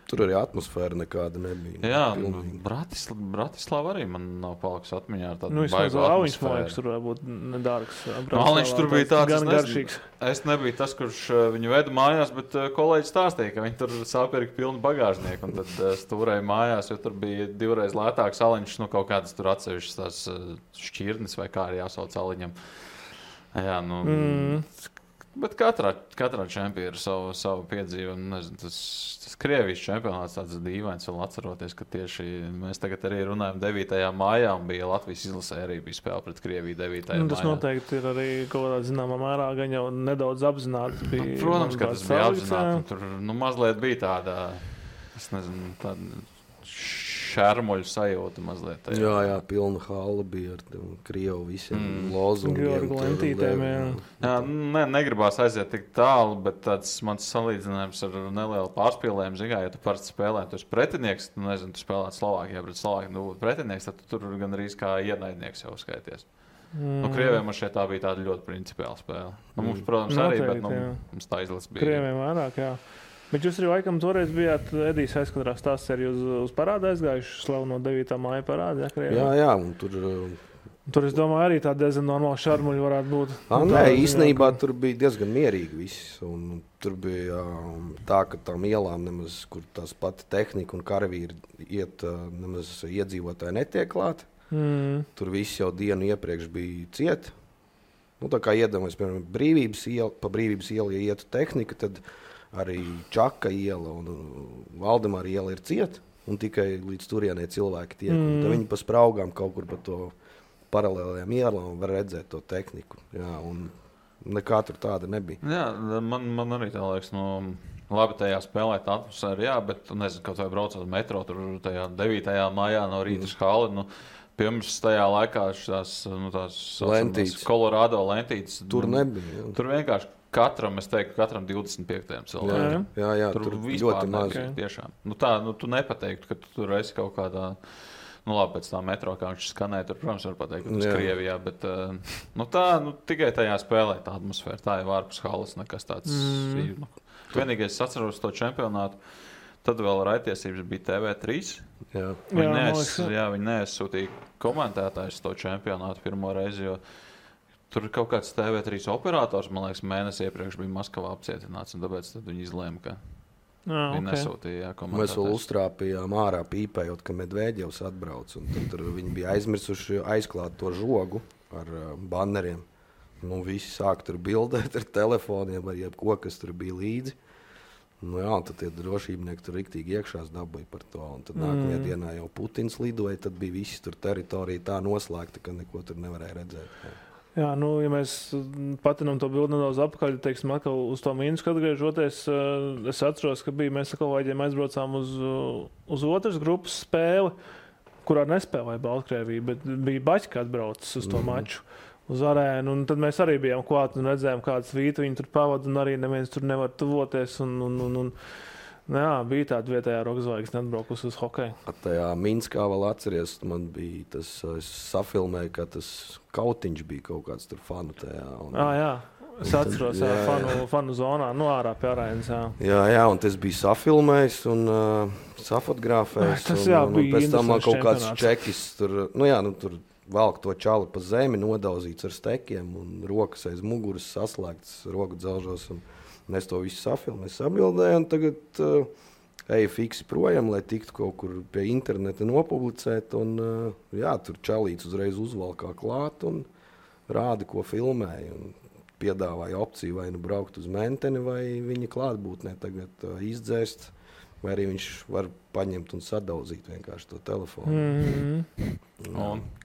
Tur arī atmosfēra nekāda nebija. Jā, Bratislava arī man nav palikusi atmiņā ar tādu baigu atmosfēru. Man liekas, tur varbūt nedārgs. Viņš tur bija tāds gan garšīgs. Es nebiju tas, kurš viņu veda mājās, bet kolēģis stāstīja, ka viņi tur sapirka pilnu bagāžnieku, un tad stūrēja mājās, jo tur bija 2 reizes lētāks aliņš, kaut kādas tur atsevišķas tās šķirnes vai kā arī jāsauc aliņam. Jā, bet katrā čempionā ir savu piedzīvojumu. Nezinu, tas Krievijas čempionāts tāds dīvains, vēl atceroties, ka tieši mēs tagad arī runājam 9. maijā, un bija Latvijas izlasē arī bija spēle pret Krieviju 9. maijā. Tas noteikti ir arī kaut kādā zināmā mērā gan jau nedaudz apzināti. Protams, ka tas bija apzināti. Tur mazliet bija tāda, es nezinu, tāda šermuļu sajūta mazliet. Jā, pilna hāla bija ar Krievu visiem lozungiem. Jā, negribās aiziet tik tālu, bet tāds mans salīdzinājums ar nelielu pārspīlējumu, ja tu parasti spēlē, tu esi pretinieks, tu spēlēt Slovākijā pret Slovākiju, pretinieks, tad tu tur gan arī kā ienaidnieks jau skaities. Krieviem man šeit tā bija tāda ļoti principiāla spēle. Mums, protams, arī, bet mums tā izlases bija. Krieviem vairāk, jā. Bet jūs arī laikam toreiz bijāt Edijas aizkadrā stāsts arī uz parādu aizgājuši slavu no 9. māja parādu, jā, un tur es domāju arī tā diezgan normāla šarmuļa varētu būt. Nē, īstenībā tur bija diezgan mierīgi viss, un tur bija tā, ka tām ielām nemaz, kur tās pati tehnika un karavīri iet, nemaz iedzīvotāji netiek klāti. Tur viss jau dienu iepriekš bija ciet. Tā kā iedomājas, piemēram, pa Brīvības ielu, ja ietu tehnika, tad arī Čaka iela un Valdemāra iela ir cieta, un tikai līdz turienē cilvēki tiek. Tad viņi pa spraugām kaut kur pa to paralēlajām ielām var redzēt to tehniku. Jā, un nekā tur tāda nebija. Jā, man arī tā liekas, labi tajā spēlēt atmosfēru, jā, bet nezinu, kaut vai braucot metro, tur tajā 9. maijā no rīta uz hali, pirms tajā laikā tās Colorado lentītes. Tur nebija. Jā. Tur vienkārši katram 25. cilvēkam. Jā, tur ļoti maz. Tiešām. Tu nepateiktu, ka tu tur esi kaut kādā, labi, pēc tā metro, kā viņš skanēja, tur, protams, var pateikt, ka tas Krievijā, bet tikai tajā spēlē tā atmosfēra, tā jau ārpus halas nekas tāds. Vienīgais es atceros to čempionātu, tad vēl raidtiesības bija TV3. Viņi neaizsūtīja komentētājus to čempionātu pirmo reizi, jo tur kaut kāds TV3 operators, man liekas, mēnesi iepriekš bija Maskavā apcietināts, un tāpēc viņi izlēma, ka viņi nesūtīja komentētājus. Mēs vēl uztrāpījām ārā pīpējot, ka Medvēģevs atbrauc, un tad viņi bija aizmirsuši aizklāt to žogu ar banneriem. Visi sāk tur bildēt ar telefoniem, ar jebko, kas tur bija līdzi. Tad tie drošībnieki tur riktīgi iekšās dabūja par to, un tad nākamajā dienā jau Putins lidoja, tad bija visi tur teritorija tā noslēgta, ka neko tur nevarēja redzēt. Jā, ja mēs patinām to bildi nedaudz apakaļ, teiksim, atkal uz to Minsku atgriežoties, es atceros, ka mēs ar kolēģiem aizbraucām uz otras grupas spēli, kurā nespēlēja Baltkrievija, bet bija Baķka atbraucis uz to maču, uz arēnu, un tad mēs arī bijām klāt un redzējām, kādas vītu viņi tur pavada, un arī neviens tur nevar tuvoties, jā, bija tāda vietējā rokzvaigzne atbraukusi uz hokeju. Tajā Minskā vēl atceries, man bija tas, es safilmēju, ka tas kautiņš bija kaut kāds tur fanu tajā. Jā, es atceros, fanu zonā, ārā pie arēnas, jā. Jā, un tas bija safilmējis un safotogrāfējis. Tas jā, un bija pēc tam man kaut kāds čempionāts. čekis tur, tur valk to čali pa zemi, nodauzīts ar stekiem un rokas aiz muguras saslēgts roku dzelžos. Un es to visu safilmēju, sabildēju, un tagad eju fiksi projām, lai tiktu kaut kur pie interneta nopublicēt. Un, tur čalīts uzreiz uzvalkā klāt un rāda, ko filmēja. Un piedāvāja opciju vai nu braukt uz Menteni, vai viņa klātbūtnē tagad izdzēst, vai arī viņš var paņemt un sadauzīt vienkārši to telefonu.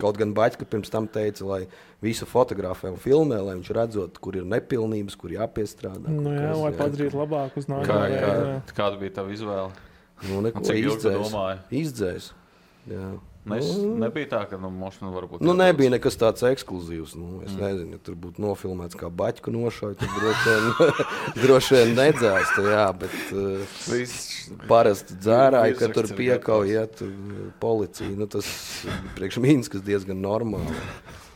Kaut gan Baķka pirms tam teica, lai visu fotografē un filmē, lai viņš redzot, kur ir nepilnības, kur jāpiestrādā. Lai padarītu labāk uz nākamajā. Kāda bija tava izvēle? Neko izdzēs. Jā. Nebija tā, ka mošana varbūt... nebija nekas tāds ekskluzīvs. Es nezinu, ja tur būtu nofilmēts kā Baķku nošauj, tad droši vien nedzēstu, jā, bet parasti dzērāji, ka tur piekauj, tur policija. Tas priekš Minskas diezgan normāli.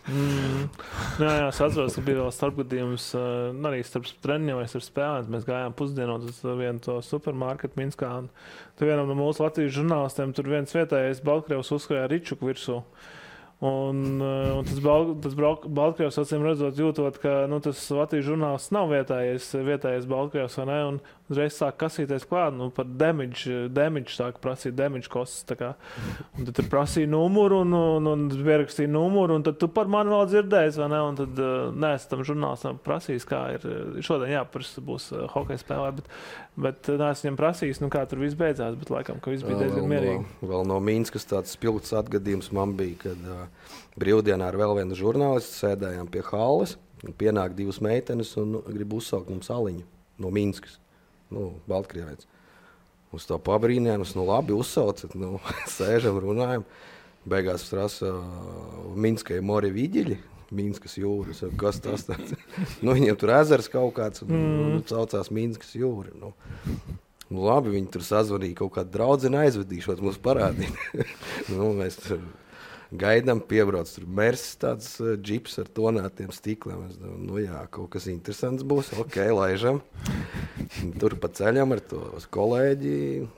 Jā, es atceros, ka bija vēl starpgadījums arī starp treniņiem vai starp spēlēm. Mēs gājām pusdienot uz vienu to supermarketu Minskā. Tur vienam no mūsu Latvijas žurnālistiem tur viens vietējais Baltkrievs uzskrēja Ričuku virsū. Un tas Baltkrievs, acīm redzot, jūtot, ka tas Latvijas žurnālists nav vietējais Baltkrievs, vai ne? Un uzreiz sāk kasīties klāt, par damage sāk prasīt, damage costs. Un tad tur prasīja numuru un pierakstīja numuru, un tad tu par mani vēl dzirdēsi, vai ne? Un tad neesmu tam žurnālistam prasījis, kā ir šodien jāprasa būs hokeja spēlē, bet neesmu viņam prasījis, kā tur viss beidzās, bet laikam, ka viss bija diezgan mierīgi. Vēl no Minskas tāds spilgts atgadījums man bija, kad brīvdienā ar vēl vienu žurnālistu sēdējām pie halles, pienāk divas meitenes un grib uzsaukt mums aliņu no Minskas. Baltkrievietis. Uz to pabrīnījām, labi uzsaucat, sēžam, runājam. Beigās prasa Minskai mori viģiļi, Minskas jūras. Kas tas tāds? Viņiem tur ezers kaut kāds, saucās Minskas jūra. Labi, viņi tur sazvanīja kaut kādu draudzeni aizvedīšot, mums parādīt. Mēs tur gaidām, piebrauc tur Mersis, tāds džips ar tonētiem stikliem. Es domāju, kaut kas interesants būs, laižam. Tur pa ceļam ar to kolēģi,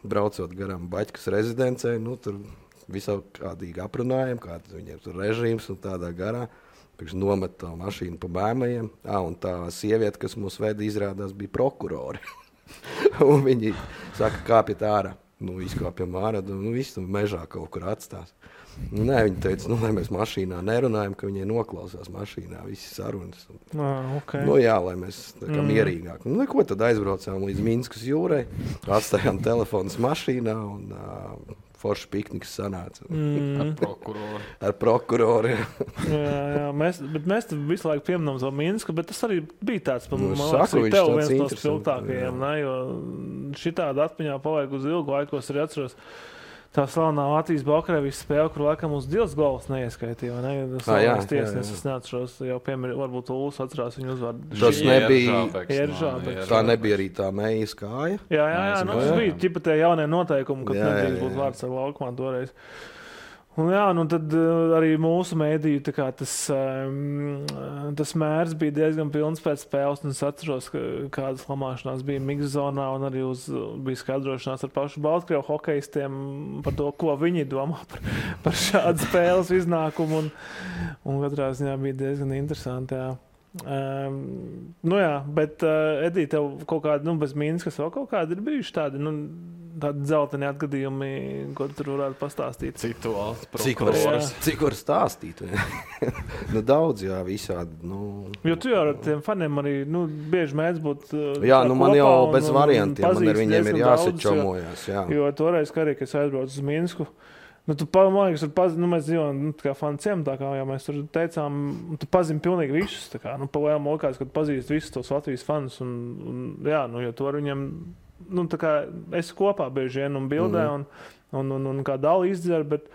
braucot garām Baķkas rezidencē, tur visākādīgi aprunājam, kāds viņiem tur režīms un tādā garā. Pirms nomet to mašīnu pa bēmajiem. Un tā sieviete, kas mūs veda, izrādās bija prokurori. Un viņi saka, kāpiet ārā. Izkāpjam ārā, visu mežā kaut kur atstās. Nē, viņi teica, lai mēs mašīnā nerunājam, ka viņai noklausās mašīnā visi sarunas. Okay. Lai mēs tā kā mierīgāk. Ko tad aizbraucām līdz Minskas jūrai, atstājām telefonus mašīnā un foršs pikniks sanāca. Ar prokuroru. jā, mēs visu laiku pieminām to Minsku, bet tas arī bija tāds, tev viens no spilgtākajiem, jo šitādi atmiņā paliek uz ilgu laiku, es arī atceros. Tā slavenā Latvijas-Baltkrievijas spēle, kur laikam uz Dils gols neieskaitīja, vai ne? Slavenās tiesnesis, es neatceros, jau varbūt Ulis atcerās viņu uzvārdu. Tas nebija, Ieržābeks. tā nebija arī tā Meijas kāja? Jā, tas bija ķipa tie jaunie noteikumi, kad nedrīkst būt vārds ar laukumā toreiz. Un tad arī mūsu mēdīju tas mērs bija diezgan pilns pēc spēles, un es atceros, kādas lamāšanās bija Mikzonā, un arī bija skaidrošanās ar pašu Baltkrievu hokejistiem par to, ko viņi domā par šādu spēles iznākumu, un katrā ziņā bija diezgan interesanti, jā. Bet Edī, tev kaut kādi, bez Minskas vēl kaut kādi ir bijuši tādi, tādi dzelteni atgadījumi, ko tur varētu pastāstīt? Cik var stāstīt? Daudz, jā, visādi. Jo tu jau ar tiem faniem arī, bieži mēdz būt jā, man jau bez variantiem, man ar viņiem ir jāsečomojās, jā. Jo toreiz, kā arī, kad es aizbraucu uz Minsku, Nu, man liekas, mēs dzīvojam kā fanu ciemtā, kā jau mēs tur teicām, tu pazini pilnīgi visus. Tā kā, pa lielām lokās, kad pazīst visus tos Latvijas fanus. Jā, jo tu ar viņiem, tā kā esi kopā bieži vien un bildē un kā dali izdzer, bet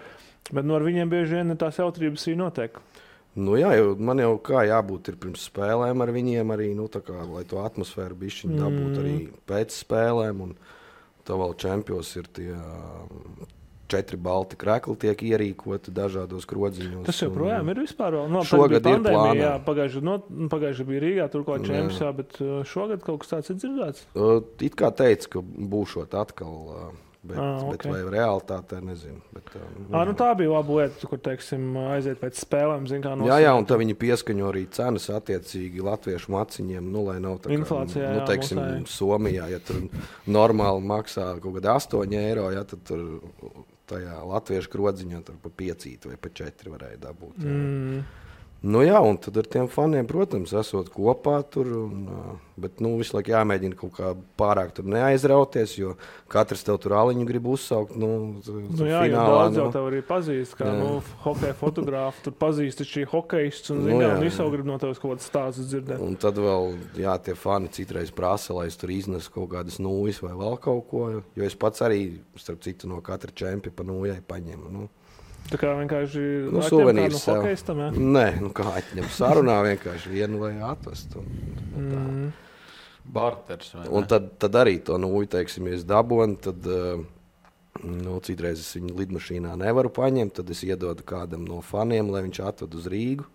ar viņiem bieži vien tās jautrības arī notiek. Jā, man jau kā jābūt ir pirms spēlēm ar viņiem arī, lai to atmosfēru bišķiņu dabūt arī pēc spēlēm. Un tā vēl čempions ir tie 4 balti krekli tiek ierīkoti dažādos krodziņos. Tas joprojām ir vispār vēl. Šogad ir plānā. Pagājuši bija Rīgā, tur kā čempions, bet šogad kaut kas tāds ir dzirdēts? It kā teica, ka būšot atkal... Bet vai realitātē, nezinu. Tā bija laba lieta, kur, teiksim, aiziet pēc spēlēm, Jā, un tā viņi pieskaņo arī cenas attiecīgi latviešu maciņiem, lai nav tā kā, inflācijā, teiksim, Somijā, ja tur normāli maksā kaut kādi 8 eiro, ja tad tur tajā latviešu krodziņā tur pa 5 vai pa 4 varēja dabūt. Jā, un tad ar tiem faniem, protams, esot kopā tur, bet visu laiku jāmēģina kaut kā pārāk tur neaizrauties, jo katrs tev tur aliņu grib uzsaukt. Jā, daudz jau tev arī pazīst, kā hokeja fotogrāfi, tur pazīst šī hokeists un visu grib no tevis kaut kāds stāsts dzirdēt. Un tad vēl, tie fani citreiz prasa, lai es tur iznesu kaut kādas nūjas vai vēl kaut ko, jo es pats arī, starp citu, no katra čempia pa nūjai paņemu. Tā kā vienkārši suvenīrs no hokeistam, jā? Nē, kā atņem sarunā vienkārši vienu vai atvest. Barters. Un tad arī to nūju, teiksim, ja es dabonu, tad citreiz es viņu lidmašīnā nevaru paņemt, tad es iedodu kādam no faniem, lai viņš atved uz Rīgu.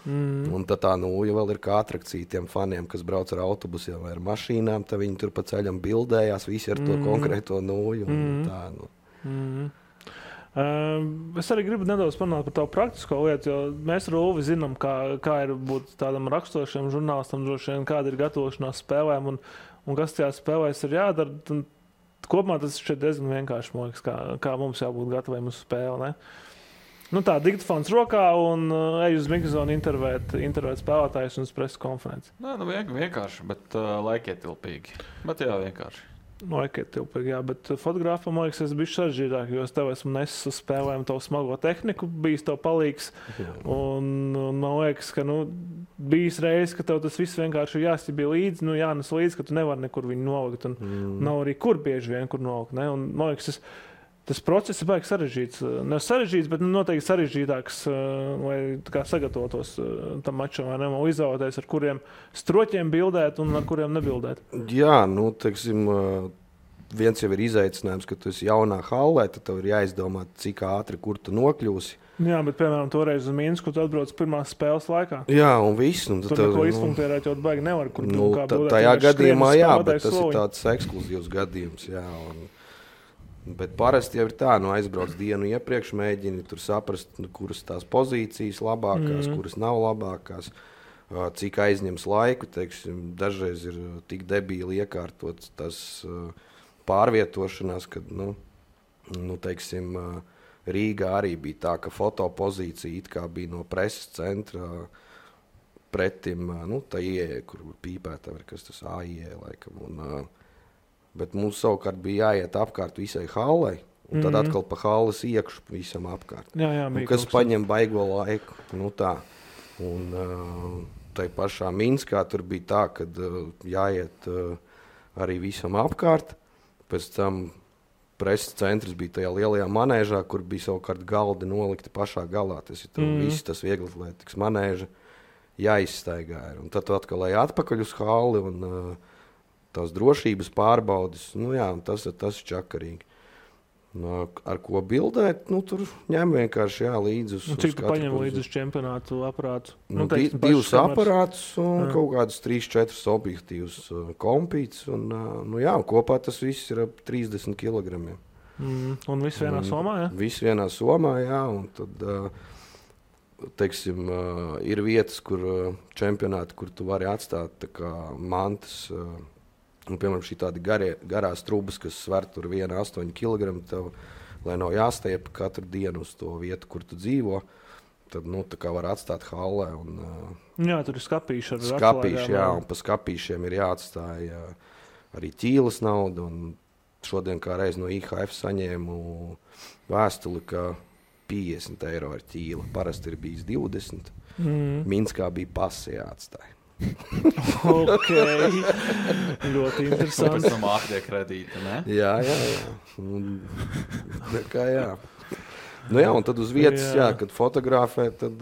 Un tad tā nūja vēl ir kā atrakcija tiem faniem, kas brauc ar autobusiem vai ar mašīnām, tad viņi tur pa ceļam bildējās, visi ar to konkrēto nūju. Es arī gribu nedaudz parunāt par tavu praktisko lietu, jo mēs ar Ulvi zinām, kā ir būt tādam raksturošiem žurnālistam, droši vien, kāda ir gatavošanās spēlēm un kas tajās spēlēs ir jādara. Kopumā tas šeit diezgan vienkārši, man liekas, kā mums jābūt gataviem uz spēli. Ne? Tā, diktafons rokā un ej uz mikrofonu intervēt spēlētājus un uz preses konferenci. Nē, vienkārši, bet laikietilpīgi. Bet jā, vienkārši. Laikietilpīgi, jā, bet fotogrāfam, man liekas, es biju sarežģītāk, jo es tev esmu nesis uz spēlēm tavu smago tehniku, bijis tev palīgs. Un man liekas, ka bijis reiz, ka tev tas viss vienkārši ir jāstibī līdzi, jānes līdzi, ka tu nevari nekur viņu nolikt. Un nav arī kur bieži vien, kur nolikt. Ne? Un man liekas, tas process ir baigi sarežģīts. Ne sarežģīts, bet noteikti sarežģītāks, lai sagatavotos tam mačam, vai ne? Un izvēlēties, ar kuriem stroķiem bildēt un ar kuriem nebildēt. Jā, teiksim, viens jau ir izaicinājums, ka tu esi jaunā hallē, tad tev ir jāizdomā, cik ātri, kur tu nokļūsi. Jā, bet, piemēram, toreiz uz Minsku tu atbrauc pirmās spēles laikā. Jā, un viss. Tur neko izpunktērēt, jo baigi nevar, kur kā bildēt. Tajā gadījumā, jā, bet tas ir tāds ekskluzīvs gadījums, jā. Bet parasti jau ir tā, aizbrauc dienu iepriekš, mēģini tur saprast, kuras tās pozīcijas labākās, kuras nav labākās, cik aizņems laiku, teiksim, dažreiz ir tik debīli iekārtot tas pārvietošanās, kad, teiksim, Rīgā arī bija tā, ka fotopozīcija it kā bija no preses centra pretim, tā ieeja, kur pīpēta, kas tas AIE laikam, bet mums savukārt bija jāiet apkārt visai hallei, un tad atkal pa halles iekšu visam apkārt. Jā, kas paņem baigo laiku. Tā. Un tai pašā Minskā tur bija tā, kad jāiet arī visam apkārt. Pēc tam preses centrs bija tajā lielajā manēžā, kur bija savukārt galdi nolikti pašā galā. Tas ir viss tas vieglatlētikas manēža jāizstaigā. Un tad atkal lai atpakaļ uz halli un tās drošības pārbaudes, tas ir čakarīgi. Ar ko bildēt, tur ņem vienkārši līdzi uz cik tu paņem līdzi uz čempionātu aparātus? Divus aparātus un kaut kādus 3-4 objektīvus kompītus. Un kopā tas viss ir ap 30 kilogramiem. Un viss vienā somā, jā? Viss vienā somā, jā. Un tad, teiksim, ir vietas, kur čempionāti, kur tu vari atstāt tā kā mantas. Un, piemēram, šī tādi garās trubas, kas sver tur 1,8 kg, tev, lai nav jāstiep katru dienu uz to vietu, kur tu dzīvo, tad, tā kā var atstāt hallē. Jā, tur ir skapīši ar skapīši, jā, un pa skapīšiem ir jāatstāja arī ķīles nauda, un šodien kā reiz no IHF saņēmu vēstuli, ka 50 eiro ir ķīla. Parasti ir bijis 20. Minskā bija pasi jāatstāja. Ok. Ļoti interesanti. Pēc tam ātrie kredīti, ne? Jā. Kā jā. Nu jā, un tad uz vietas, kad fotografē, tad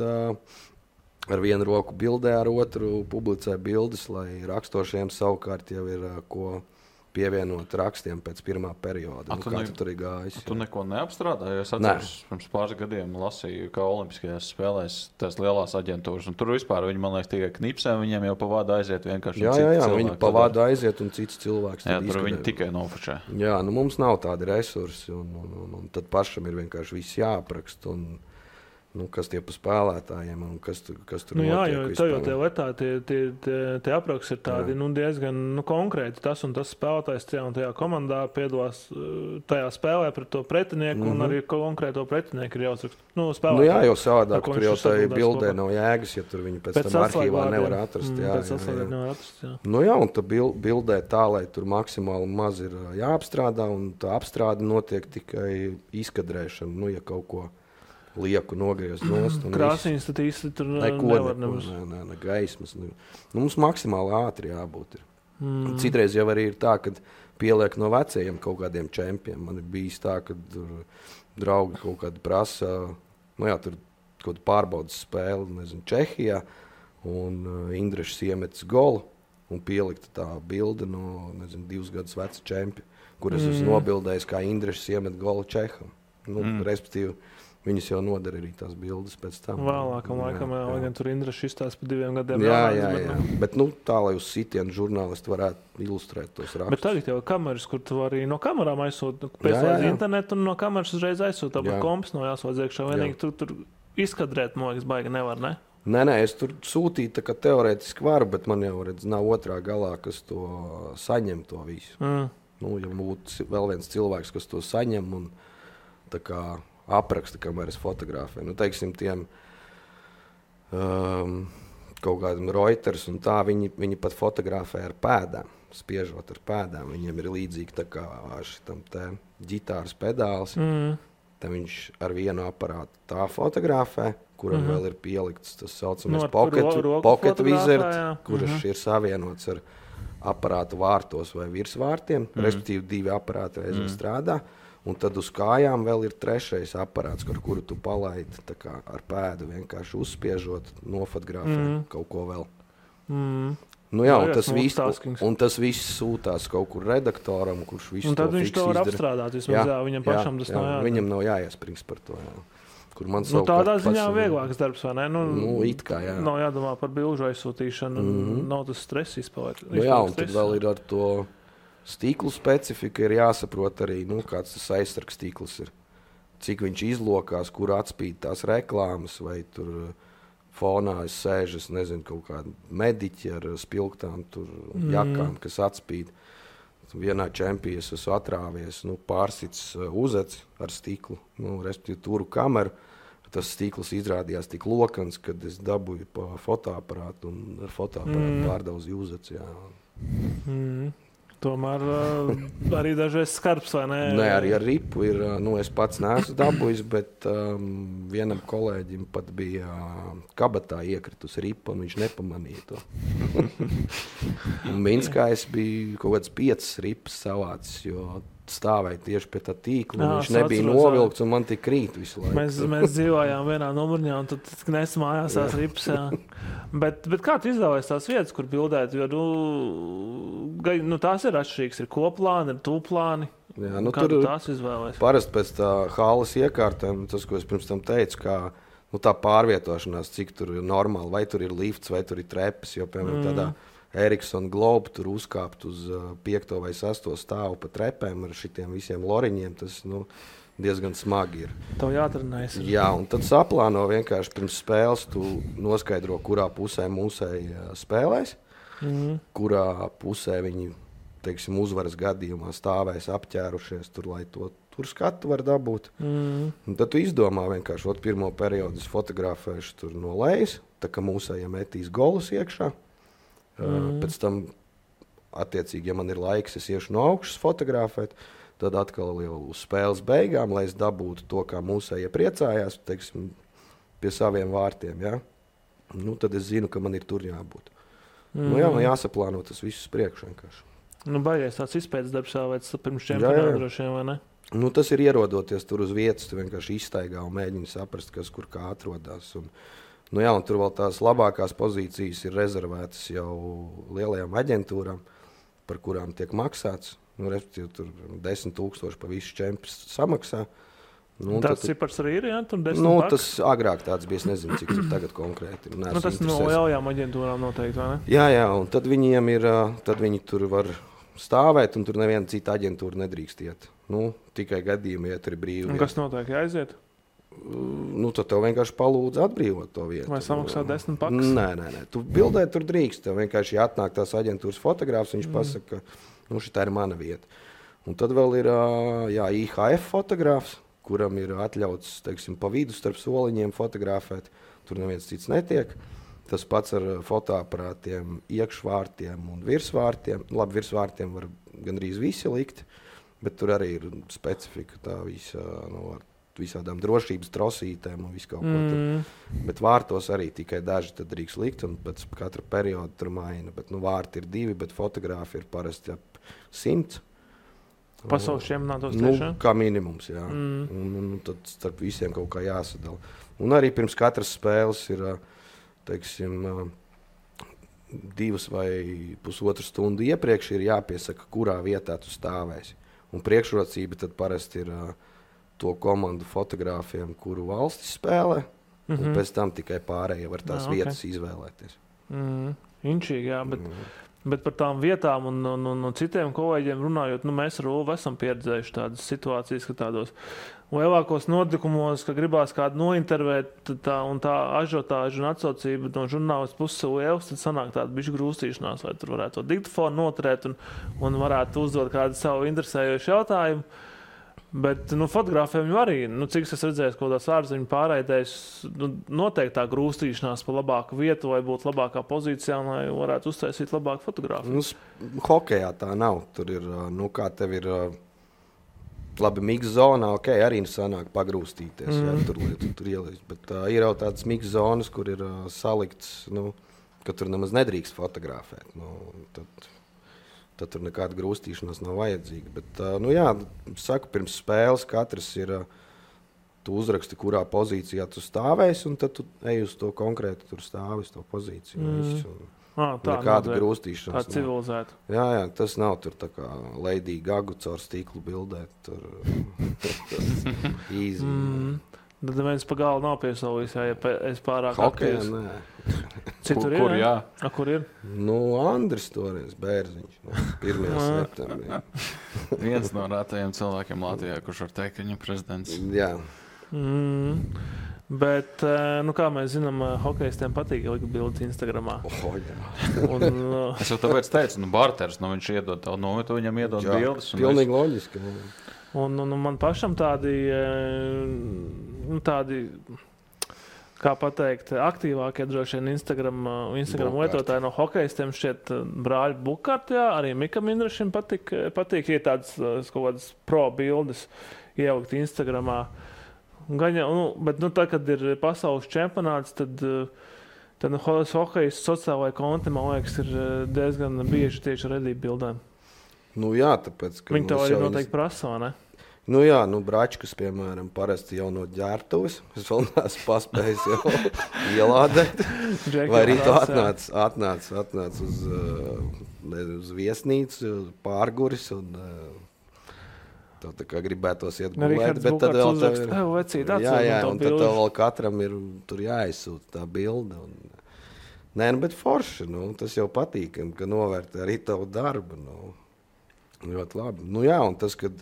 ar vienu roku bildē, ar otru publicē bildes, lai rakstošiem savukārt jau ir ko pievienot rakstiem pēc pirmā perioda. Kā tu tur ir gājis? Tu neko neapstrādāji? Es atceros, pirms pāris gadiem lasīju, kā olimpiskajās spēlēs tās lielās aģentūras. Un tur vispār viņi, man liekas, tikai knipsē, viņiem jau pa vādu aiziet vienkārši. Jā, viņi pa vādu aiziet un cits cilvēks. Jā, tur viņi tikai nofučē. Jā, mums nav tādi resursi. Un tad pašam ir vienkārši viss jāaprakst. Kas tie pa spēlētājiem un kas tur notiek. Jā, jo tev jau tie letā, tie apraksti ir tādi diezgan konkrēti. Tas un tas spēlētājs tajā un tajā komandā piedalās tajā spēlē pret to pretinieku un arī konkrēto pretinieku ir jāuzraksta. Jā, jo savādāk tur jau tai bildē nav jēgas, ja tur viņi pēc tam arhīvā nevar atrast. Jā, un tā bildē tā, lai tur maksimāli maz ir jāapstrādā un tā apstrāde notiek tikai izkadrēšana, ja kaut ko lieku nogriezt nost. Krāsīns tad īsti tur nevar nemaz. Ne gaismas. Mums maksimāli ātri jābūt. Citreiz jau arī ir tā, ka pieliek no vecajiem kaut kādiem čempiem. Man ir bijis tā, ka draugi kaut kādi prasa, tur kaut pārbaudas spēli, Čehijā, un Indrešs iemetis golu, un pielikta tā bilde no, 2 gadus veca čempi, kuras es nobildējis, kā Indrešs iemet golu Čeham. Respektīvi, viņas jau nodara arī tās bildes pēc tam. Vēlākam laikam, lai gan tur Indrešs izstāsta pa 2 gadiem. Jā. Bet tā, lai uz sitienu žurnālisti varētu ilustrēt tos rakstus. Bet tagad jau kameras, kur tu arī no kamerām aizsūt, pēc internetu un no kameras uzreiz aizsūt, tāpat komps nav jāsūdz iekšā. Vienīgi tu tur izkadrēt, man liekas, baigi nevar, ne? Nē, es tur sūtīju, tā kā teorētiski varu, bet man jau nav otrā galā, kas to saņem to visu. Ja būtu vēl viens cilvēks, kas to saņem un tā kā apraksta, kamēr es fotografēju. Teiksim, tiem kaut kādiem Reuters un tā, viņi pat fotografē ar pēdām, spiežot ar pēdām. Viņiem ir līdzīgi tā kā šitam te ģitāras pedāls. Tad viņš ar vienu aparātu tā fotografē, kuram vēl ir pielikts tas saucamais pocket wizard, kurš ir savienots ar aparātu vārtos vai virsvārtiem, respektīvi 2 aparāti reizē strādā. Un tad uz kājām vēl ir 3. aparāts, ar kuru tu palaidi ar pēdu vienkārši uzspiežot, nofotografēt kaut ko vēl. Un tas viss sūtās kaut kur redaktoram, kurš visu to fiks izdara. Un tad viņš to var apstrādāt, vismaz viņam pašam tas nav jādara. Viņam nav jāiesprings par to. Kur man tādā ziņā vieglāks darbs, vai ne? It kā, jā. Nav jādomā par bilžu aizsūtīšanu, nav tas stress izpaliek. Un tad vēl ir ar to stīklu specifika ir jāsaprot arī, kāds tas aizsargs stīkls ir. Cik viņš izlokās, kur atspīd tās reklāmas, vai tur fonā es sēžu, kaut kādi mediķi ar spilgtām jakām, kas atspīd. Vienā čempijā es esmu atrāvies, pārsits uzeci ar stiklu, respektīvi turu kameru. Tas stikls izrādījās tik lokans, kad es dabūju pa fotoaparātu un ar fotoaparātu pārdauzu uzeci. Tomēr arī dažreiz skarbs, vai ne? Nē, arī ar ripu ir, es pats neesmu dabūjis, bet vienam kolēģim pat bija kabatā iekritus ripa, un viņš nepamanīja to. Un Minskā es biju kaut kāds 5 ripas savācis, jo stāvēja tieši pie tā tīkla, un viņš nebija novilkts, un man tik krīt visu laiku. Mēs dzīvojām vienā numurņā, un tad nes mājās tās ripas, Bet kā tu izvēlējies tās vietas, kur bildēt? Jo, tās ir atšķirīgas, ir koplāni, ir tūplāni. Jā, kā tu tās izvēlējies? Parasti pēc tā halas iekārtēm, tas, ko es pirms tam teicu, kā tā pārvietošanās, cik tur ir normāli, vai tur ir lifts, vai tur ir trepas, jo, piemēram, tādā Ericsson Globe tur uzkāpt uz 5. vai 6. stāvu pa trepēm ar šitiem visiem loriņiem, tas, diezgan smagi ir. Tev jātrenējas. Jā, un tad saplāno vienkārši pirms spēles, tu noskaidro, kurā pusē mūsēji spēlēs, kurā pusē viņi, teiksim, uzvaras gadījumā stāvēs apķērušies tur, lai to tur skatu var dabūt. Un tad tu izdomā vienkārši, pirmo periodu es fotografēšu tur no lejas, tā kā mūsējiem metīs golus iekšā. Pēc tam, attiecīgi, ja man ir laiks, es iešu no augšas fotografēt. Tad atkal jau uz spēles beigām, lai es dabūtu to, kā mūsējie priecājās, teiksim, pie saviem vārtiem. Ja? Nu, tad es zinu, ka man ir tur jābūt. Nu, jā, man jāsaplāno tas viss priekš vienkārši. Nu, baigies tāds izpētes darbs vai pirms čempionāta droši vien, vai ne? Nu, tas ir ierodoties tur uz vietas, tu vienkārši izstaigā un mēģini saprast, kas kur kā atrodas. Un, nu, jā, un tur vēl tās labākās pozīcijas ir rezervētas jau lielajām aģentūrām, par kurām tiek maksāts. Nu, respektīvi, tur 10,000 pa visu čempionu samaksā. Nu, tāds cipars arī ir, jā? Tur 10 nu, paks? tas agrāk tāds bija, es nezinu, cik tur tagad konkrēti. Nu, tas no lielajām aģentūrām noteikti, vai ne? Jā, un tad viņiem ir, tad viņi tur var stāvēt, un tur neviena cita aģentūra nedrīkst iet. Nu, tikai gadījumi, ja tur ir brīvi. Un kas notiek, jāaiziet? Nu, tad tev vienkārši palūdz atbrīvot to vietu. Vai samaksā 10 paks? Nē. Tu bildē tur drīkst. Tev vienkārši atnāk tās aģentūras fotogrāfs, viņš pasaka, ka nu, šitā ir mana vieta. Un tad vēl ir IHF fotogrāfs, kuram ir atļauts, teiksim, pa vidu starp soliņiem fotografēt. Tur neviens cits netiek. Tas pats ar fotoaparātiem, iekšvārtiem un virsvārtiem. Labi, virsvārtiem var gandrīz visi likt, bet tur arī ir specifika tā visa, nu, ar visādām drošības trosītēm un visu kaut ko tur. Bet vārtos arī tikai daži tad drīkst likt, un pēc katra perioda tur maina. Bet, nu, vārti ir 2, bet fotogrāfi ir parasti ap 100. Pasaules čempionātos tiešām? Nu, kā minimums, jā. Un tad starp visiem kaut kā jāsadala. Un arī pirms katras spēles ir, teiksim, 2 vai pusotru stundu iepriekš ir jāpiesaka, kurā vietā tu stāvēsi. Un priekšrocība tad parasti ir to komandu fotogrāfiem, kuru valstis spēlē, un pēc tam tikai pārējie var tās vietas izvēlēties. Inčīgi, jā, bet par tām vietām un citiem kolēģiem runājot, nu, mēs ar Ulvu esam pieredzējuši tādas situācijas, ka tādos lielākos notikumos, ka gribās kādu nointervēt, un tā ažiotāža un atsaucība no žurnālistu puses liels, tad sanāk tāda bišķi grūstīšanās, vai tur varētu to diktofonu noturēt un varētu uzdot kādu savu interesējošu jautājumu. Bet nu, fotogrāfiem jau arī, nu, cik es redzēju, kaut kādās ārzeņu pārraidēs, nu, noteikti tā grūstīšanās pa labāku vietu, lai būtu labākā pozīcijā, lai varētu uztaisīt labāku fotogrāfiju. Nu, hokejā tā nav. Tur ir, nu, kā tev ir labi mix zonā, ok, arī sanāk pagrūstīties, ja tur ielīst. Bet ir jau tādas mix zonas, kur ir salikts, nu, ka tur nemaz nedrīkst fotografēt. Nu, tad tur nekāda grūstīšanās nav vajadzīga. Bet, nu jā, saku, pirms spēles katrs ir, tu uzraksti, kurā pozīcijā tu stāvēsi, un tad tu ej uz to konkrēti, tur stāvi uz to pozīciju. Nekāda grūstīšanās. Tā civilizēta. Jā, tas nav tur tā kā Lady Gaga caur stiklu bildēt. Tur easy. Tad viens pa galu nav piesaulījis, ja es pārāk aktīvs. Citur kur, ir, jā? Kur ir? Nu, Andris toreiz, Bērziņš, 1. septembrī. Viens no rētajiem cilvēkiem Latvijā, kurš var teikt, ka viņam prezidents. Jā. Bet, nu kā mēs zinām, hokejistiem patīk likt bildes Instagramā. Es jau tāpēc teicu, barters, nu viņš iedod tavu nometu, viņam iedod bildes. Pilnīgi loģiski. Un man pašam tādi, kā pateikt, aktīvākie droši vien Instagram lietotāji no hokejistiem šķiet brāļi Bukārti, jā, arī Mikam Indrašim patīk, ja tādas kaut kādas pro bildes ielikt Instagramā. Bet tā, kad ir pasaules čempionāts, tad hokejists sociālajā konti, man liekas, ir diezgan bieži tieši ar redību bildēm. Nu jā, tāpēc, ka viņi tev arī noteikti prasa, vai ne? Nu jā, Bračkas, piemēram, parasti jau no ģērbtuves. Es vēl neesmu paspējis jau ielādēt. Vai arī tu atnāc uz viesnīcu, pārguris un tev tā kā gribētos iet gulēt. Bet tad vēl tev ir... Jā, un tad tev vēl katram ir tur jāizsūta tā bilde. Nē, bet forši, tas jau patīkam, ka novērtē arī tavu darbu. Ļoti labi. Nu jā, un tas, kad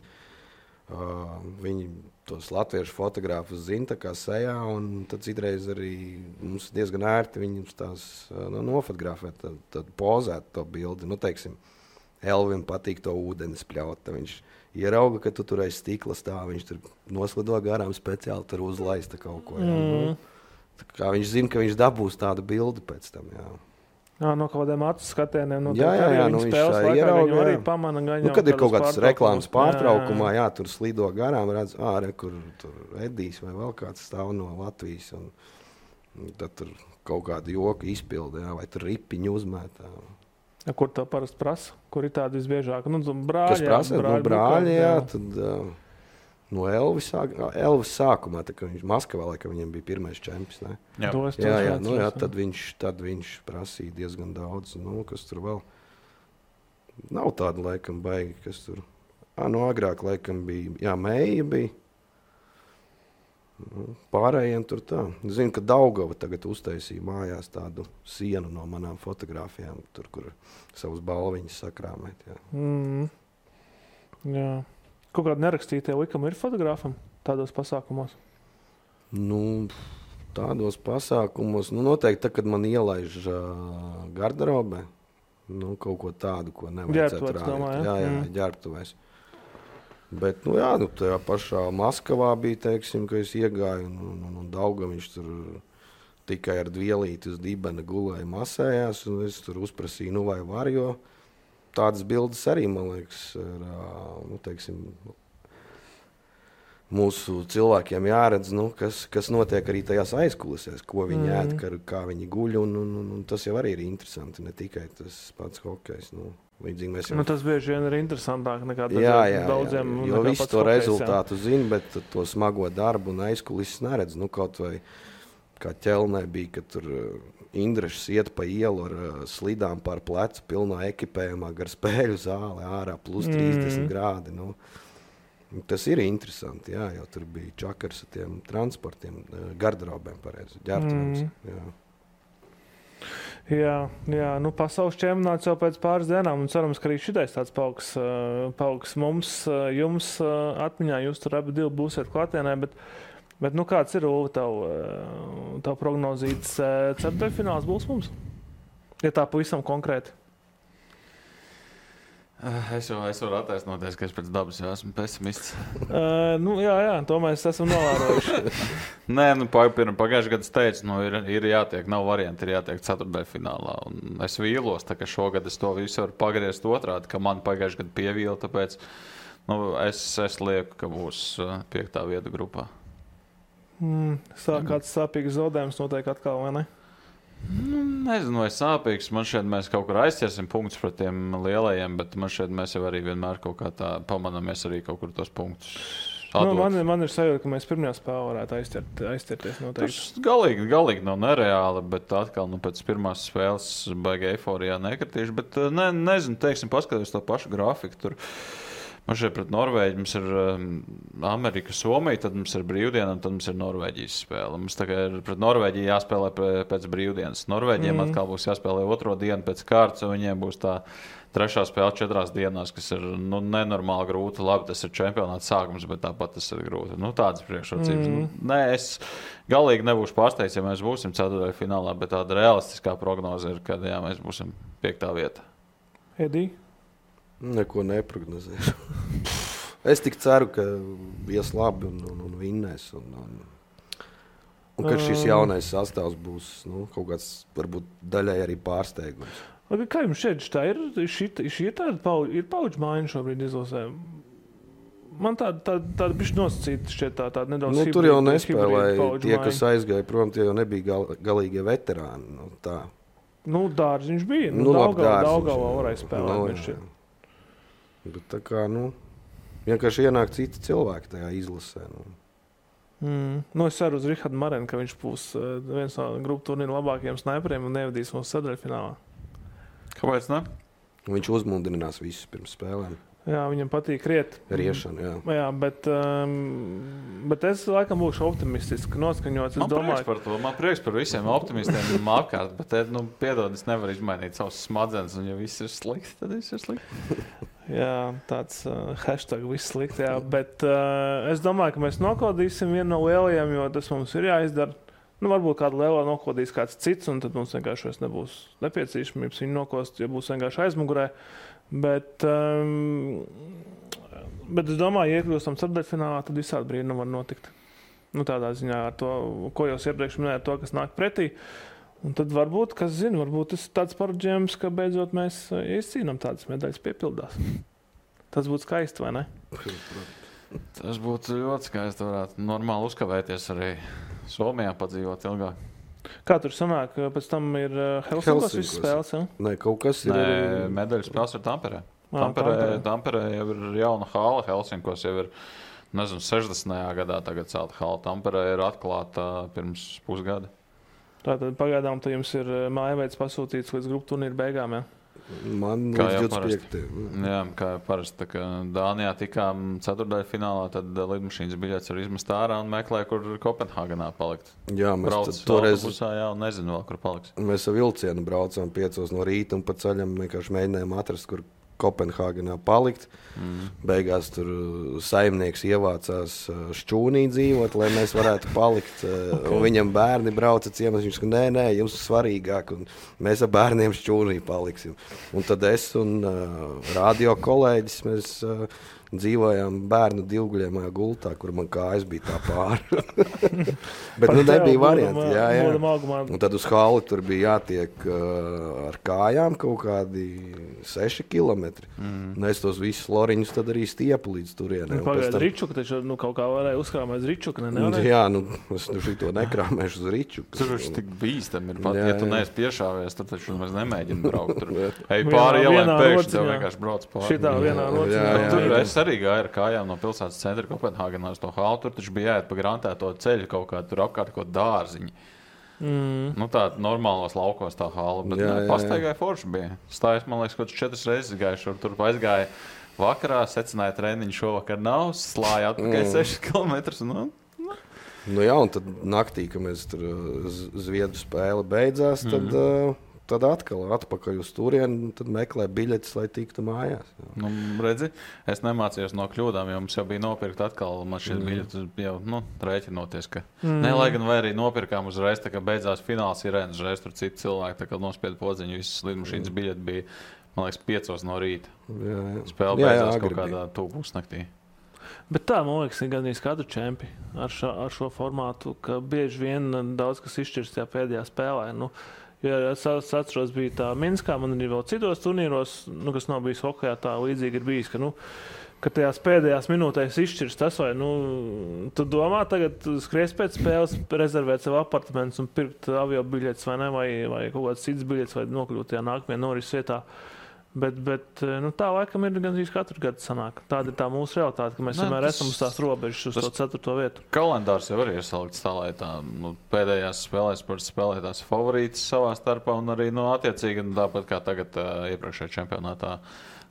viņi tos latviešu fotogrāfus zina tā kā sejā, un tad citreiz arī mums diezgan ērti viņus tās nofotografēt, tad pozēt to bildi. Nu, teiksim, Elvim patīk to ūdeni spļaut. Viņš ierauga, ka tu tur aiz stikla stāv, viņš tur noslido garām speciāli tur uzlaista kaut ko. Jā. Tā kā viņš zina, ka viņš dabūs tādu bildi pēc tam, jā. No kaut kādiem acu skatieniem. Jā, viņš spēles laikā ierauga, arī pamana gaņā. Kad ir kaut kāds reklāmas pārtraukumā, tur slido garām, redz, kur tur Edijs vai vēl kāds stāv no Latvijas. Un tad tur kaut kādu joku izpildi, vai tur ripiņu uzmētā. Kur tev parasti prasa? Kur ir tādi visbiežāk? Brāļi, kas prasa? Brāļi, tad no Elvis sākumā, tā, kad viņš Maskavā, laikam viņam bija pirmais čempions, ne? Jā, tad viņš prasīja diezgan daudz, kas tur vēl. Nav tāda, laikam, baigi, kas tur. Agrāk, laikam, bija, Meija bija. Pārējiem tur tā. Zinu, ka Daugava tagad uztaisīja mājās tādu sienu no manām fotogrāfijām, tur, kur savus balviņus sakrāmēt. Jā. Kaut kādi nerakstītie likumi ir fotogrāfam tādos pasākumos? Tādos pasākumos, noteikti, kad man ielaiž garderobē, kaut ko tādu, ko nevajadzētu rādīt. Jā, ģērbtuvēs. Bet, tajā pašā Maskavā bija, teiksim, ka es iegāju, un Daugaviņš tur tikai ar dvielīti uz dibena gulēja masējās, un es tur uzprasīju, vai var, jo tādas bildes arī, man liekas, teiksim, mūsu cilvēkiem jāredz, kas notiek arī tajās aizkulisēs, ko viņi ēd, kā viņi guļ, un tas jau arī ir interesanti, ne tikai tas pats hokejs. Tas bieži vien ir interesantāk nekā daudziem. Jo visu to rezultātu zina, bet to smago darbu un aizkulises neredz. Kaut vai kā ķelnē bija, kad tur Indrašs iet pa ielu ar slidām pār plecu, pilnā ekipējumā, gar spēļu zāli, ārā plus 30 grādi. Tas ir interesanti, jo tur bija čakars ar tiem transportiem, garderobēm pareizi, ģērbtuvēm. Jā, pasaules čempionāts jau pēc pāris dienām, un cerams, ka arī šitais tāds pauks mums, jums atmiņā, jūs tur abi divi būsiet klātienē, bet kāds ir, Ulvi, tavu prognozīts ceturtdaļfināls būs mums? Ja tā pavisam konkrēti. Es varu attaisnoties, ka es pēc dabas jau esmu pesimists. Jā, to mēs esam novērojuši. Nē, pagājušajā gadā es teicu, ir jātiek, nav varianti, ir jātiek ceturtdaļfinālā. Un es vīlos, tā ka šogad es to visu varu pagriezt otrādi, ka man pagājušajā gadā pievīla, tāpēc es lieku, ka būs 5. vieta grupā. Kāds sāpīgs zaudējums notiek atkal, vai ne? Nezinu, vai sāpīgs. Man šeit mēs kaut kur aizķersim punktus pret tiem lielajiem, bet man šeit mēs jau arī vienmēr kaut kā tā pamanamies arī kaut kur tos punktus. Man ir sajūta, ka mēs pirmajā spēlē varētu aizķerties noteikti. Tas galīgi nav nereāli, bet atkal pēc pirmās spēles baigi eiforijā nekritīšu, bet nezinu, teiksim, paskatījos to pašu grafiku tur. Man šeit pret Norvēģi mums ir Amerika, Somija, tad mums ir brīvdiena, un tad mums ir Norvēģijas spēle. Mums tagad ir pret Norvēģiju jāspēlē pēc brīvdienas. Norvēģiem atkal būs jāspēlē otro dienu pēc kārtas, un viņiem būs tā 3. spēle 4 dienās, kas ir nenormāli grūti. Labi, tas ir čempionāts sākums, bet tāpat tas ir grūti. Tādas priekšrocības. Es galīgi nebūšu pārsteigts, ja mēs būsim ceturtdaļfinālā, bet tāda realistiskā prognoze ir, ka mēs būsim 5. vieta. Edī? Neko neprognozēšu. Es tik ceru, ka ies labi un vinnēs. Un ka šis jaunais sastāvs būs kaut kāds, varbūt daļai arī pārsteigums. Kā jums šeit tā ir? Šī ir paudžu maiņa šobrīd izlasē? Man tāda bišķi nosacīta šķiet tāda nedaudz hibrīda. Tur jau nespēlēja tie, kas aizgāja prom, tie jau nebija galīgie veterāni. Dārziņš bija. Daugavā varēja spēlēt. Bet tā kā, vienkārši ienāk citi cilvēki tajā izlasē. Es ceru uz Rihardu Marenu, ka viņš būs viens no grupu turnīru labākajiem sniperiem un nevadīs mūsu ceturtdaļfinālā. Kāpēc ne? Viņš uzmundrinās visus pirms spēlēm. Jā, viņam patīk riet. Riešana, jā, bet es laikam būšu optimistiski noskaņots. Man prieks par visiem optimistiem apkārt, bet piedod, es nevaru izmainīt savus smadzenes, un ja viss ir slikti, tad viss ir slikti. Jā, tāds hashtag viss slikti, jā, bet es domāju, ka mēs nokodīsim vienu no lielajiem, jo tas mums ir jāizdara. Varbūt kādu lielo nokodīs kāds cits, un tad mums vienkārši nebūs nepieciešamības viņu nokost, ja būs vienkārši aizmugurē. Bet es domāju, ja iekļūstam ceturtdaļfinālā, tad visādi brīnumi var notikt. Tādā ziņā ar to, ko jūs iepriekš minējāt, to, kas nāk pretī. Un tad varbūt, kas zina, varbūt tas ir tāds parodžējums, ka beidzot mēs izcīnām tādas medaļas piepildās. Tas būtu skaisti, vai ne? Tas būtu ļoti skaisti. Varētu normāli uzkavēties arī Somijā padzīvot ilgāk. Kā tur sanāk? Pēc tam ir Helsinkos visas spēles, ja? Nē, kaut kas ir. Nē, medaļas spēles ir Tamperē. Tamperē jau ir jauna hala, Helsinkos jau ir, 60. gadā tagad celta hala. Tamperē ir atklāta pirms pusgada. Tātad pagaidām jums ir mājveids pasūtīts līdz grupu turnīru beigām, ja? Man Kā jau līdz 25. Jā, kā jau parasti. Tā kā Dānijā tikām ceturtdaļfinālā, tad lidmašīnas biļetes var izmest ārā un meklē, kur Kopenhāgenā palikt. Jā, Brauc mēs toreiz autobusā, jā, un nezinu vēl, kur paliks. Mēs ar vilcienu braucām 5 no rīta un pa ceļam vienkārši mēģinājām atrast, kur Kopenhāgenā palikt. Beigās tur saimnieks ievācās Šķūnī dzīvot, lai mēs varētu palikt. Un viņam bērni brauca ciemos. Viņš saka, nē, jums ir svarīgāk, un mēs ar bērniem Šķūnī paliksim. Un tad es un radio kolēģis, mēs dzīvojām bērnu divguļamajā gultā, kur man kājas bija tā pāri. Bet nebija varianti. Jā. Un tad uz hali tur bija jātiek ar kājām kaut kādi 6 kilometri. Un es tos visus loriņus tad arī stiepu līdz turienē. Pagaid, Ričuka taču kaut kā varēja uzkrāmēt uz Ričuka, ne? Jā, es šito nekrāmēšu uz Ričuku. Tur taču tik bīstam ir pat, ja tu neesi piešāvies, tad taču mēs nemēģinām braukt tur. Ej pāri ielēm pēkšņi, tev vienkārši brauc pāri. Šitā vienā rociņā. Tur es arī gāju ar kājām no pilsētas centra Kopenhāgenā uz to halu. Tur taču bija jāiet pa grantēto ceļu kaut kā, tur apkārt kaut dārziņi. Tā normālos laukos tā hala, bet pastaigāja forši bija. Stājas, man liekas, kaut 4 reizes gājuši, tur aizgāja vakarā, secināja treniņu šovakar nav, slāja atpakaļ 6 kilometrus. Jā, un tad naktī, kad mēs tur Zviedru spēle beidzās, tad atkal atpakaļ uz turieni, tad meklē biļetes, lai tiktu mājās. Redzi, es nemācījos no kļūdām, jo mums jau bija nopirkt atkal, man šeit biļetes jau rēķinoties, ka ne, lai gan vai arī nopirkām uzreiz, tā kā beidzās fināls sirēnas, uzreiz tur citi cilvēki, tā kā nospieda podziņu, visas lidmašīnas biļeti bija, man liekas, 5 no rīta. Spēle beidzās kaut kādā 2:00 naktī. Bet tā, man liekas, ir gandrīz katru čempi ar šo formātu, ka bieži vien daudz kas izšķirs tajā pēdējā spēlē. Ja es atceros, bija tā Minskā, man arī vēl citos turnīros, kas nav bijis hokejā, tā līdzīgi ir bijis, ka tajās pēdējās minūtēs izšķirs tas, vai tu domā tagad skries pēc spēles, rezervēt sev apartamentus un pirkt avio biļetes, vai ne, vai kaut kāds cits biļetes, vai nokļūt tajā nākamajā norises vietā. Bet tā laikam ir gandrīz katru gadu sanāk. Tāda ir tā mūsu realitāte, ka mēs vienmēr esam uz tās robežas, uz to 4. vietu. Kalendārs jau arī ir salikts tā, lai tā pēdējās spēlēs spēlētās favorītas savā starpā un arī attiecīgi, tāpat kā tagad iepriekšējā čempionātā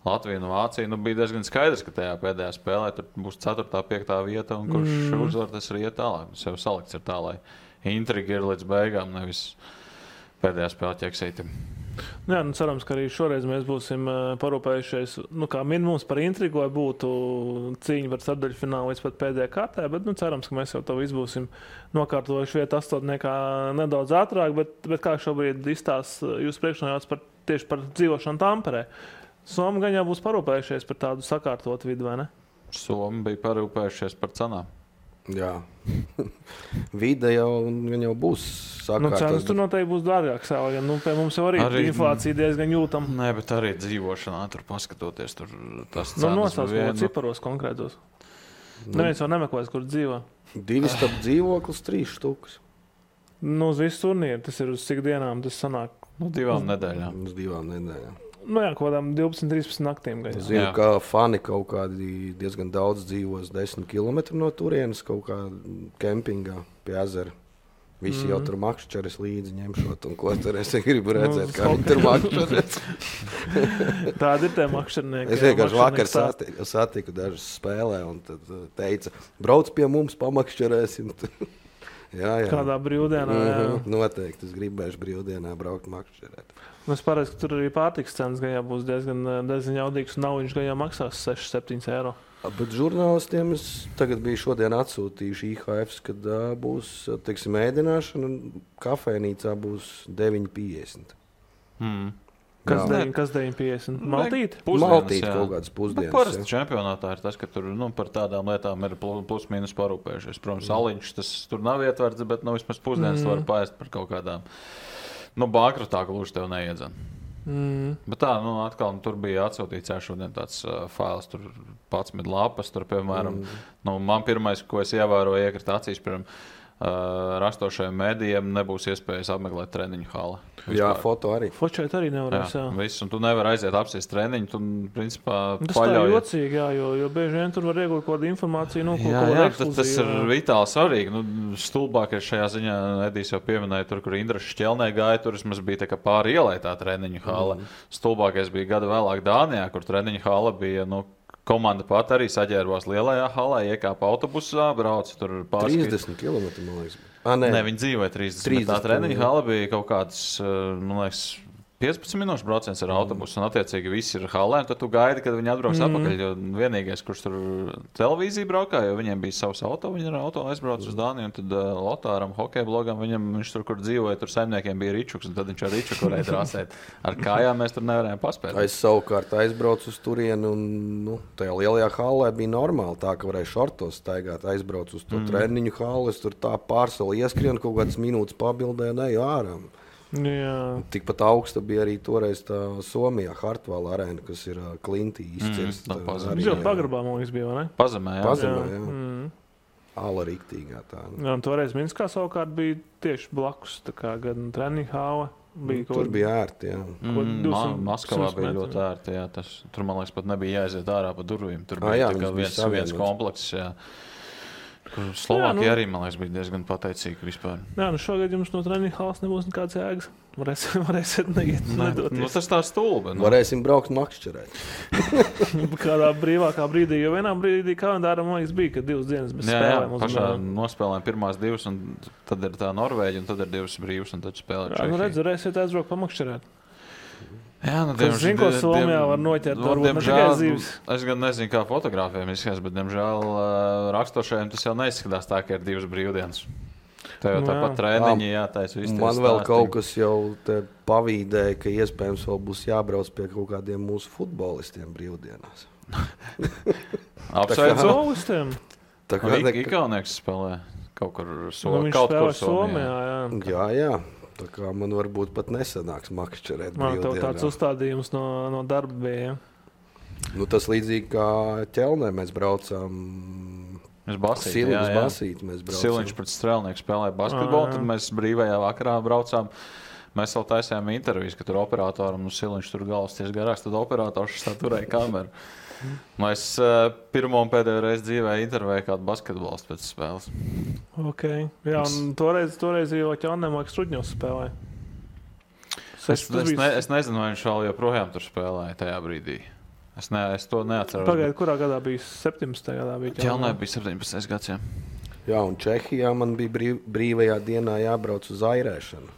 Latvija un Vācija, bija diezgan skaidrs, ka tajā pēdējā spēlē tur būs 4., 5. vieta un kurš uzvar, tas arī iet tālāk. Tas jau salikts ir tā, lai intriga ir līdz beigām, nevis pēdējā spēlē ķeksīti. Jā, cerams, ka arī šoreiz mēs būsim parūpējušies, kā minimums par intrigu, lai būtu cīņa par ceturdaļfinālu līdz pat pēdējā kārtā, bet cerams, ka mēs jau to visu būsim nokārtojuši vietu 8. nedaudz ātrāk, bet kā šobrīd izstāsta jūs priekšnojauts tieši par dzīvošanu Tamperē. Somi gan jau būs parūpējušies par tādu sakārtotu vidu, vai ne? Somi bija parūpējušies par cenām. Jā. Vide jau būs sakārtot. Cenas tur noteikti būs dārgāks. Pie mums jau arī inflācija diezgan jūtama. Nē, bet arī dzīvošanā tur paskatoties, tur tas cenas nosauc ciparos konkrētos. Neviens jau nemeklēs, kur dzīvo. 2 stab dzīvoklis, 3 štukas. Uz visu turnīru. Tas ir uz cik dienām tas sanāk? 2 nedēļām. Uz 2 nedēļām. Kaut kādām 12-13 naktīm. Zinu, ka fani kaut kādi diezgan daudz dzīvos 10 km no turienes, kaut kā kempingā pie ezera. Visi jau tur makšķeres līdzi ņemšot, un ko tur es gribu redzēt, kā viņi tur makšķeres. Tādi ir tie makšķernieki. Es vienkārši vakar satiku dažas spēlē, un tad teica, brauc pie mums, pamakšķerēsim. Jā. Kādā brīvdienā, jā. Noteikti, es gribēšu brīvdienā braukt makšķerēt. Es pareizi, ka tur arī pārtikas cenas gan jau būs diezgan jaudīgs, un naudiņš gan jau maksās 6-7 eiro. Bet žurnālistiem es tagad biju šodien atsūtījuši IHFs, kad būs, teiksim, ēdināšana, un kafejnīcā būs 9,50. Kas 9,50? Maltīti? Maltīti kaut kādas pusdienas. Parasti čempionātā ir tas, ka tur par tādām lietām ir plus-mínus parūpējušies. Protams, aliņš tas tur nav ietverts, bet vismaz pusdienas var paēst par kaut kādām bankrotā gluži tev neiedzen. Bet tā, atkal tur bija atsūtīts šodien tāds fails, tur 11 lapas, tur, piemēram, man pirmais, ko es ievēroju, iekrita acīs, piemēram, rastošajiem mēdījiem nebūs iespējas apmeklēt treniņu hali. Jā, foto arī. Fočēt arī nevarēs, jā. Viss, un tu nevar aiziet apsēst treniņu, tu, principā, tas paļaujies. Tā jocīgi, jā, jo bieži vien tur var iegūt kaut kādu informāciju, tas ir vitāli svarīgi. Stulbākais šajā ziņā, Edijs jau pieminēja, tur, kur Indraša Šķelnē gāja, tur vismaz bija tā kā pāri ielai tā treniņu hala. Stulbākais bija gada vēlāk Dānijā, kur treniņu hala bija, komanda pat arī saģērbās lielajā halā, iekāpa autobusā, brauca tur pārskatīt. 30 km, man liekas. Nē, viņi dzīvoja 30. Tā treniņa hala bija kaut kāds, man liekas, 15 minūšu brauciens ar autobusu, un attiecīgi visi ir halē, un tad tu gaidi, kad viņi atbrauks atpakaļ, jo vienīgais, kurš tur televīziju braukā, jo viņiem bija savs auto, viņi ar auto aizbrauc uz Dāniju, un tad Lotāram, hokeja blogam, viņš tur, kur dzīvoja, tur saimniekiem bija ričuks, un tad viņš ar ričuku varēja trasēt. Ar kājām mēs tur nevarējām paspēt. Es savukārt aizbraucu uz turieni, un tajā lielajā halē bija normāli tā, ka varēja šortos staigāt, aizbraucu uz to treniņu hali, es tur tā pārsoli ieskrienu, kaut kādas minūtes pabildē, neju ārā. Jā. Tikpat augsta bija arī toreiz tā Somijā Hartvala arēna, kas ir Klintī izcirsta. Jau pagrabā, man liekas, bija, vai ne? Pazemē, jā. Ala riktīgā tā. Jā, un toreiz Minskā savukārt bija tieši blakus, tā kā gan treniņu hāva. Tur bija ērti, jā. Maskavā bija ļoti ērti, jā. Tur, man liekas, pat nebija jāiziet ārā pa durvīm. Tur bija viens komplekss, jā. Slovākija arī, man liekas, bija diezgan pateicīga vispār. Jā, šogad jums no treniņu halas nebūs nekāds jēgas. Varēsiet nedoties. Tas tā stulbi. Varēsim braukt makšķerēt. Kādā brīvākā brīdī, jo vienā brīdī kalendārā, man liekas, bija, ka 2 dienas bez spēlēm. Jā, pašā nospēlējām pirmās 2, un tad ir tā Norvēģija, un tad ir 2 brīvas, un tad spēlē Čehija. Jā, varēsiet aizbraukt pamakšķerēt. Jā, Zinu, ko Somijā var noķert, varbūt ne tikai zīves. Es gan nezinu, kā fotogrāfiem izskatās, bet, diemžēl, rakstošajiem tas jau neizskatās tā, ka ir 2 brīvdienas. Tev jau tāpat treniņi jātaisa. Man vēl kaut kas jau te pavīdēja, ka iespējams vēl būs jābrauc pie kaut kādiem mūsu futbolistiem brīvdienās. Apsveicu futbolistiem? Igaunieks spēlē kaut kur Somijā. Viņš spēlē Somijā, jā. Tā kā man varbūt pat nesanāks makšķerēt brīvdienā. Tev tāds uzstādījums no darba bija, ja? Tas līdzīgi kā ķelnē mēs braucām. Basīti mēs braucām. Siliņš pret Strēlnieku spēlēja basketbolu, tad mēs brīvajā vakarā braucām. Mēs vēl taisījām intervijas, ka tur operatoram Siliņš tur galvas ties garāks, tad operators tā turēja kameru. Es pirmo un pēdējo reizi dzīvē intervēju kādu basketbolistu pēc spēles. Ok. Jā, un toreiz jau ķelnēm Struģņos spēlēja. Es nezinu, vai viņš vēl joprojām tur spēlēja tajā brīdī. Es to neatceros. Pagaidu, kurā gadā bija 17. gadā? Ķelnē bija 17. gads, jā. Jā, un Čehijā man bija brīvajā dienā jābrauc uz airēšanu.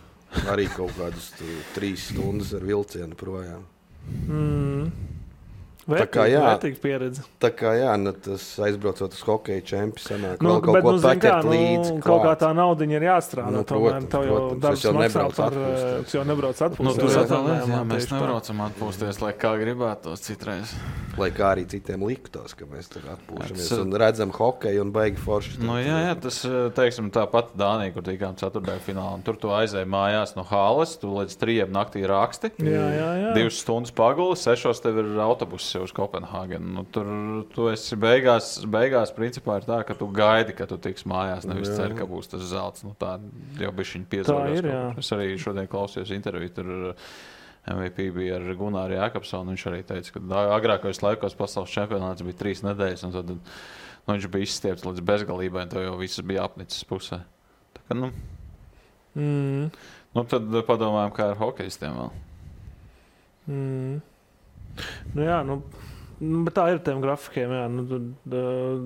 Arī kaut kādas 3 stundas ar vilcienu projām. Vērtīga pieredze. Tā kā jā, tas aizbraucot uz hokeja čempi sanāk vēl kaut ko paķert līdzi. Kaut kā tā naudiņa ir jāstrādā. Protams. Darbs maksā par, es jau nebrauc atpūsties. Mēs nebraucam atpūsties, lai kā gribētos citreiz. Lai kā arī citiem liktos, ka mēs tur atpūšamies un redzam hokeju un baigi forši. Jā, tas, teiksim, tāpat Dānija, kur tikām ceturtdaļu finālā. Tur tu aizēji mājās no halas, tu līdz 3 naktī raksti. 2 stundas paguli, 6 tev ir autobuss uz Kopenhāgenu. Tur tu esi beigās principā ir tā, ka tu gaidi, ka tu tiks mājās, nevis cer, ka būs tas zelts. Tā jau bišķiņ piezvaros. Es arī šodien klausījos interviju, tur MVP bija ar Gunāru Jākapsonu. Viņš arī teica, ka agrākajos laikos pasaules čempionāts bija 3 nedēļas, un tad viņš bija izstiepts līdz bezgalībai, un to jau viss bija apnicis pusē. Tā kā, tad padomājam, kā ar hokejistiem vēl. Bet tā ir tiem grafikiem, jā.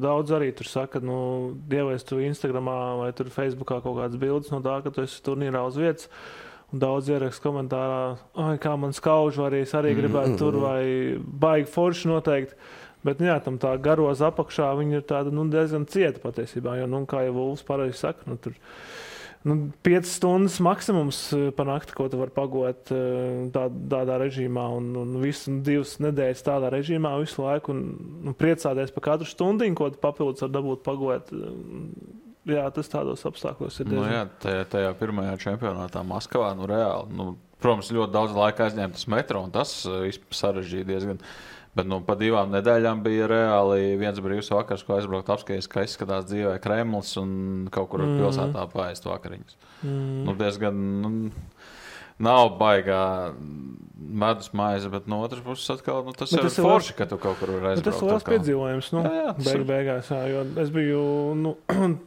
Daudz arī tur saka, dievēs tu Instagramā vai tur Facebookā kaut kādas bildes no tā, ka tu esi turnīrā uz vietas. Un daudz ieraksta komentārā, kā man skauž, vai es arī gribētu tur, vai baigi forši noteikti. Bet, jā, tam tā garoza apakšā, viņa ir tāda, diezgan cieta patiesībā, jo, kā jau Vulfs pareizi saka, tur 5 stundas maksimums pa nakti, ko tu var pagot tādā režīmā, un visu 2 nedēļas tādā režīmā visu laiku, un priecāties par katru stundiņu, ko tu papildus var dabūt pagot. jā, tas tādos apstākļos ir diezgan. Tajā pirmajā čempionātā Maskavā, reāli, protams, ļoti daudz laika aizņēma tas metro, un tas sarežģīja diezgan. Bet pa 2 nedēļām bija reāli viens brīvs vakars, ko aizbraukt apskaties, ka izskatās dzīvē Kremlis un kaut kur pilsētā paēst vakariņas. Diezgan... Nav baigā medus maize, bet no otras puses atkal tas ir forši, ka tu kaut kur var aizbraukt. Tas ir liels piedzīvojums, beigās, jo es biju,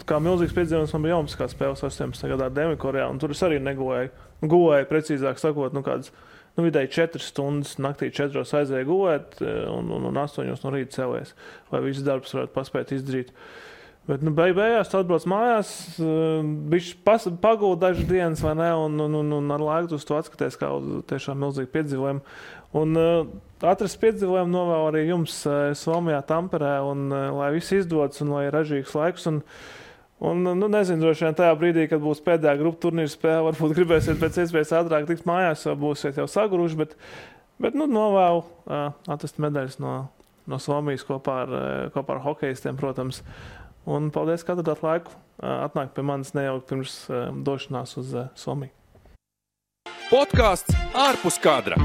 kā milzīgs piedzīvojums, man bija Olimpiskās spēles 18. gadā Dienvidkorejā, un tur es arī negulēju. Gulēju, precīzāk sakot, kādas, vidēji 4 stundas naktī 4 aizēju gulēt, un 8 no rīta cēlies, lai viss darbs varētu paspēt izdarīt. Bet, beigās tu atbrauc mājās, bišķi pagūd dažas dienas, vai ne, un ar laiku tu atskaties kā uz tiešām milzīgu piedzīvojumu. Un atrast piedzīvojumu novēl arī jums Somijā, Tamperē, un lai viss izdodas, un lai ir ražīgs laiks. Un nezinu, droši vien tajā brīdī, kad būs pēdējā grupu turnīra spēle, varbūt gribēsiet pēc iespējas ātrāk tikt mājās, vai būsiet jau saguruši, bet novēl atrast medaļas no Somijas kopā ar hokejistiem, protams. Un paldies, ka atradāt laiku atnākt pie manis nejaukt pirms došanās uz Somiju. Podcasts ārpus kadra.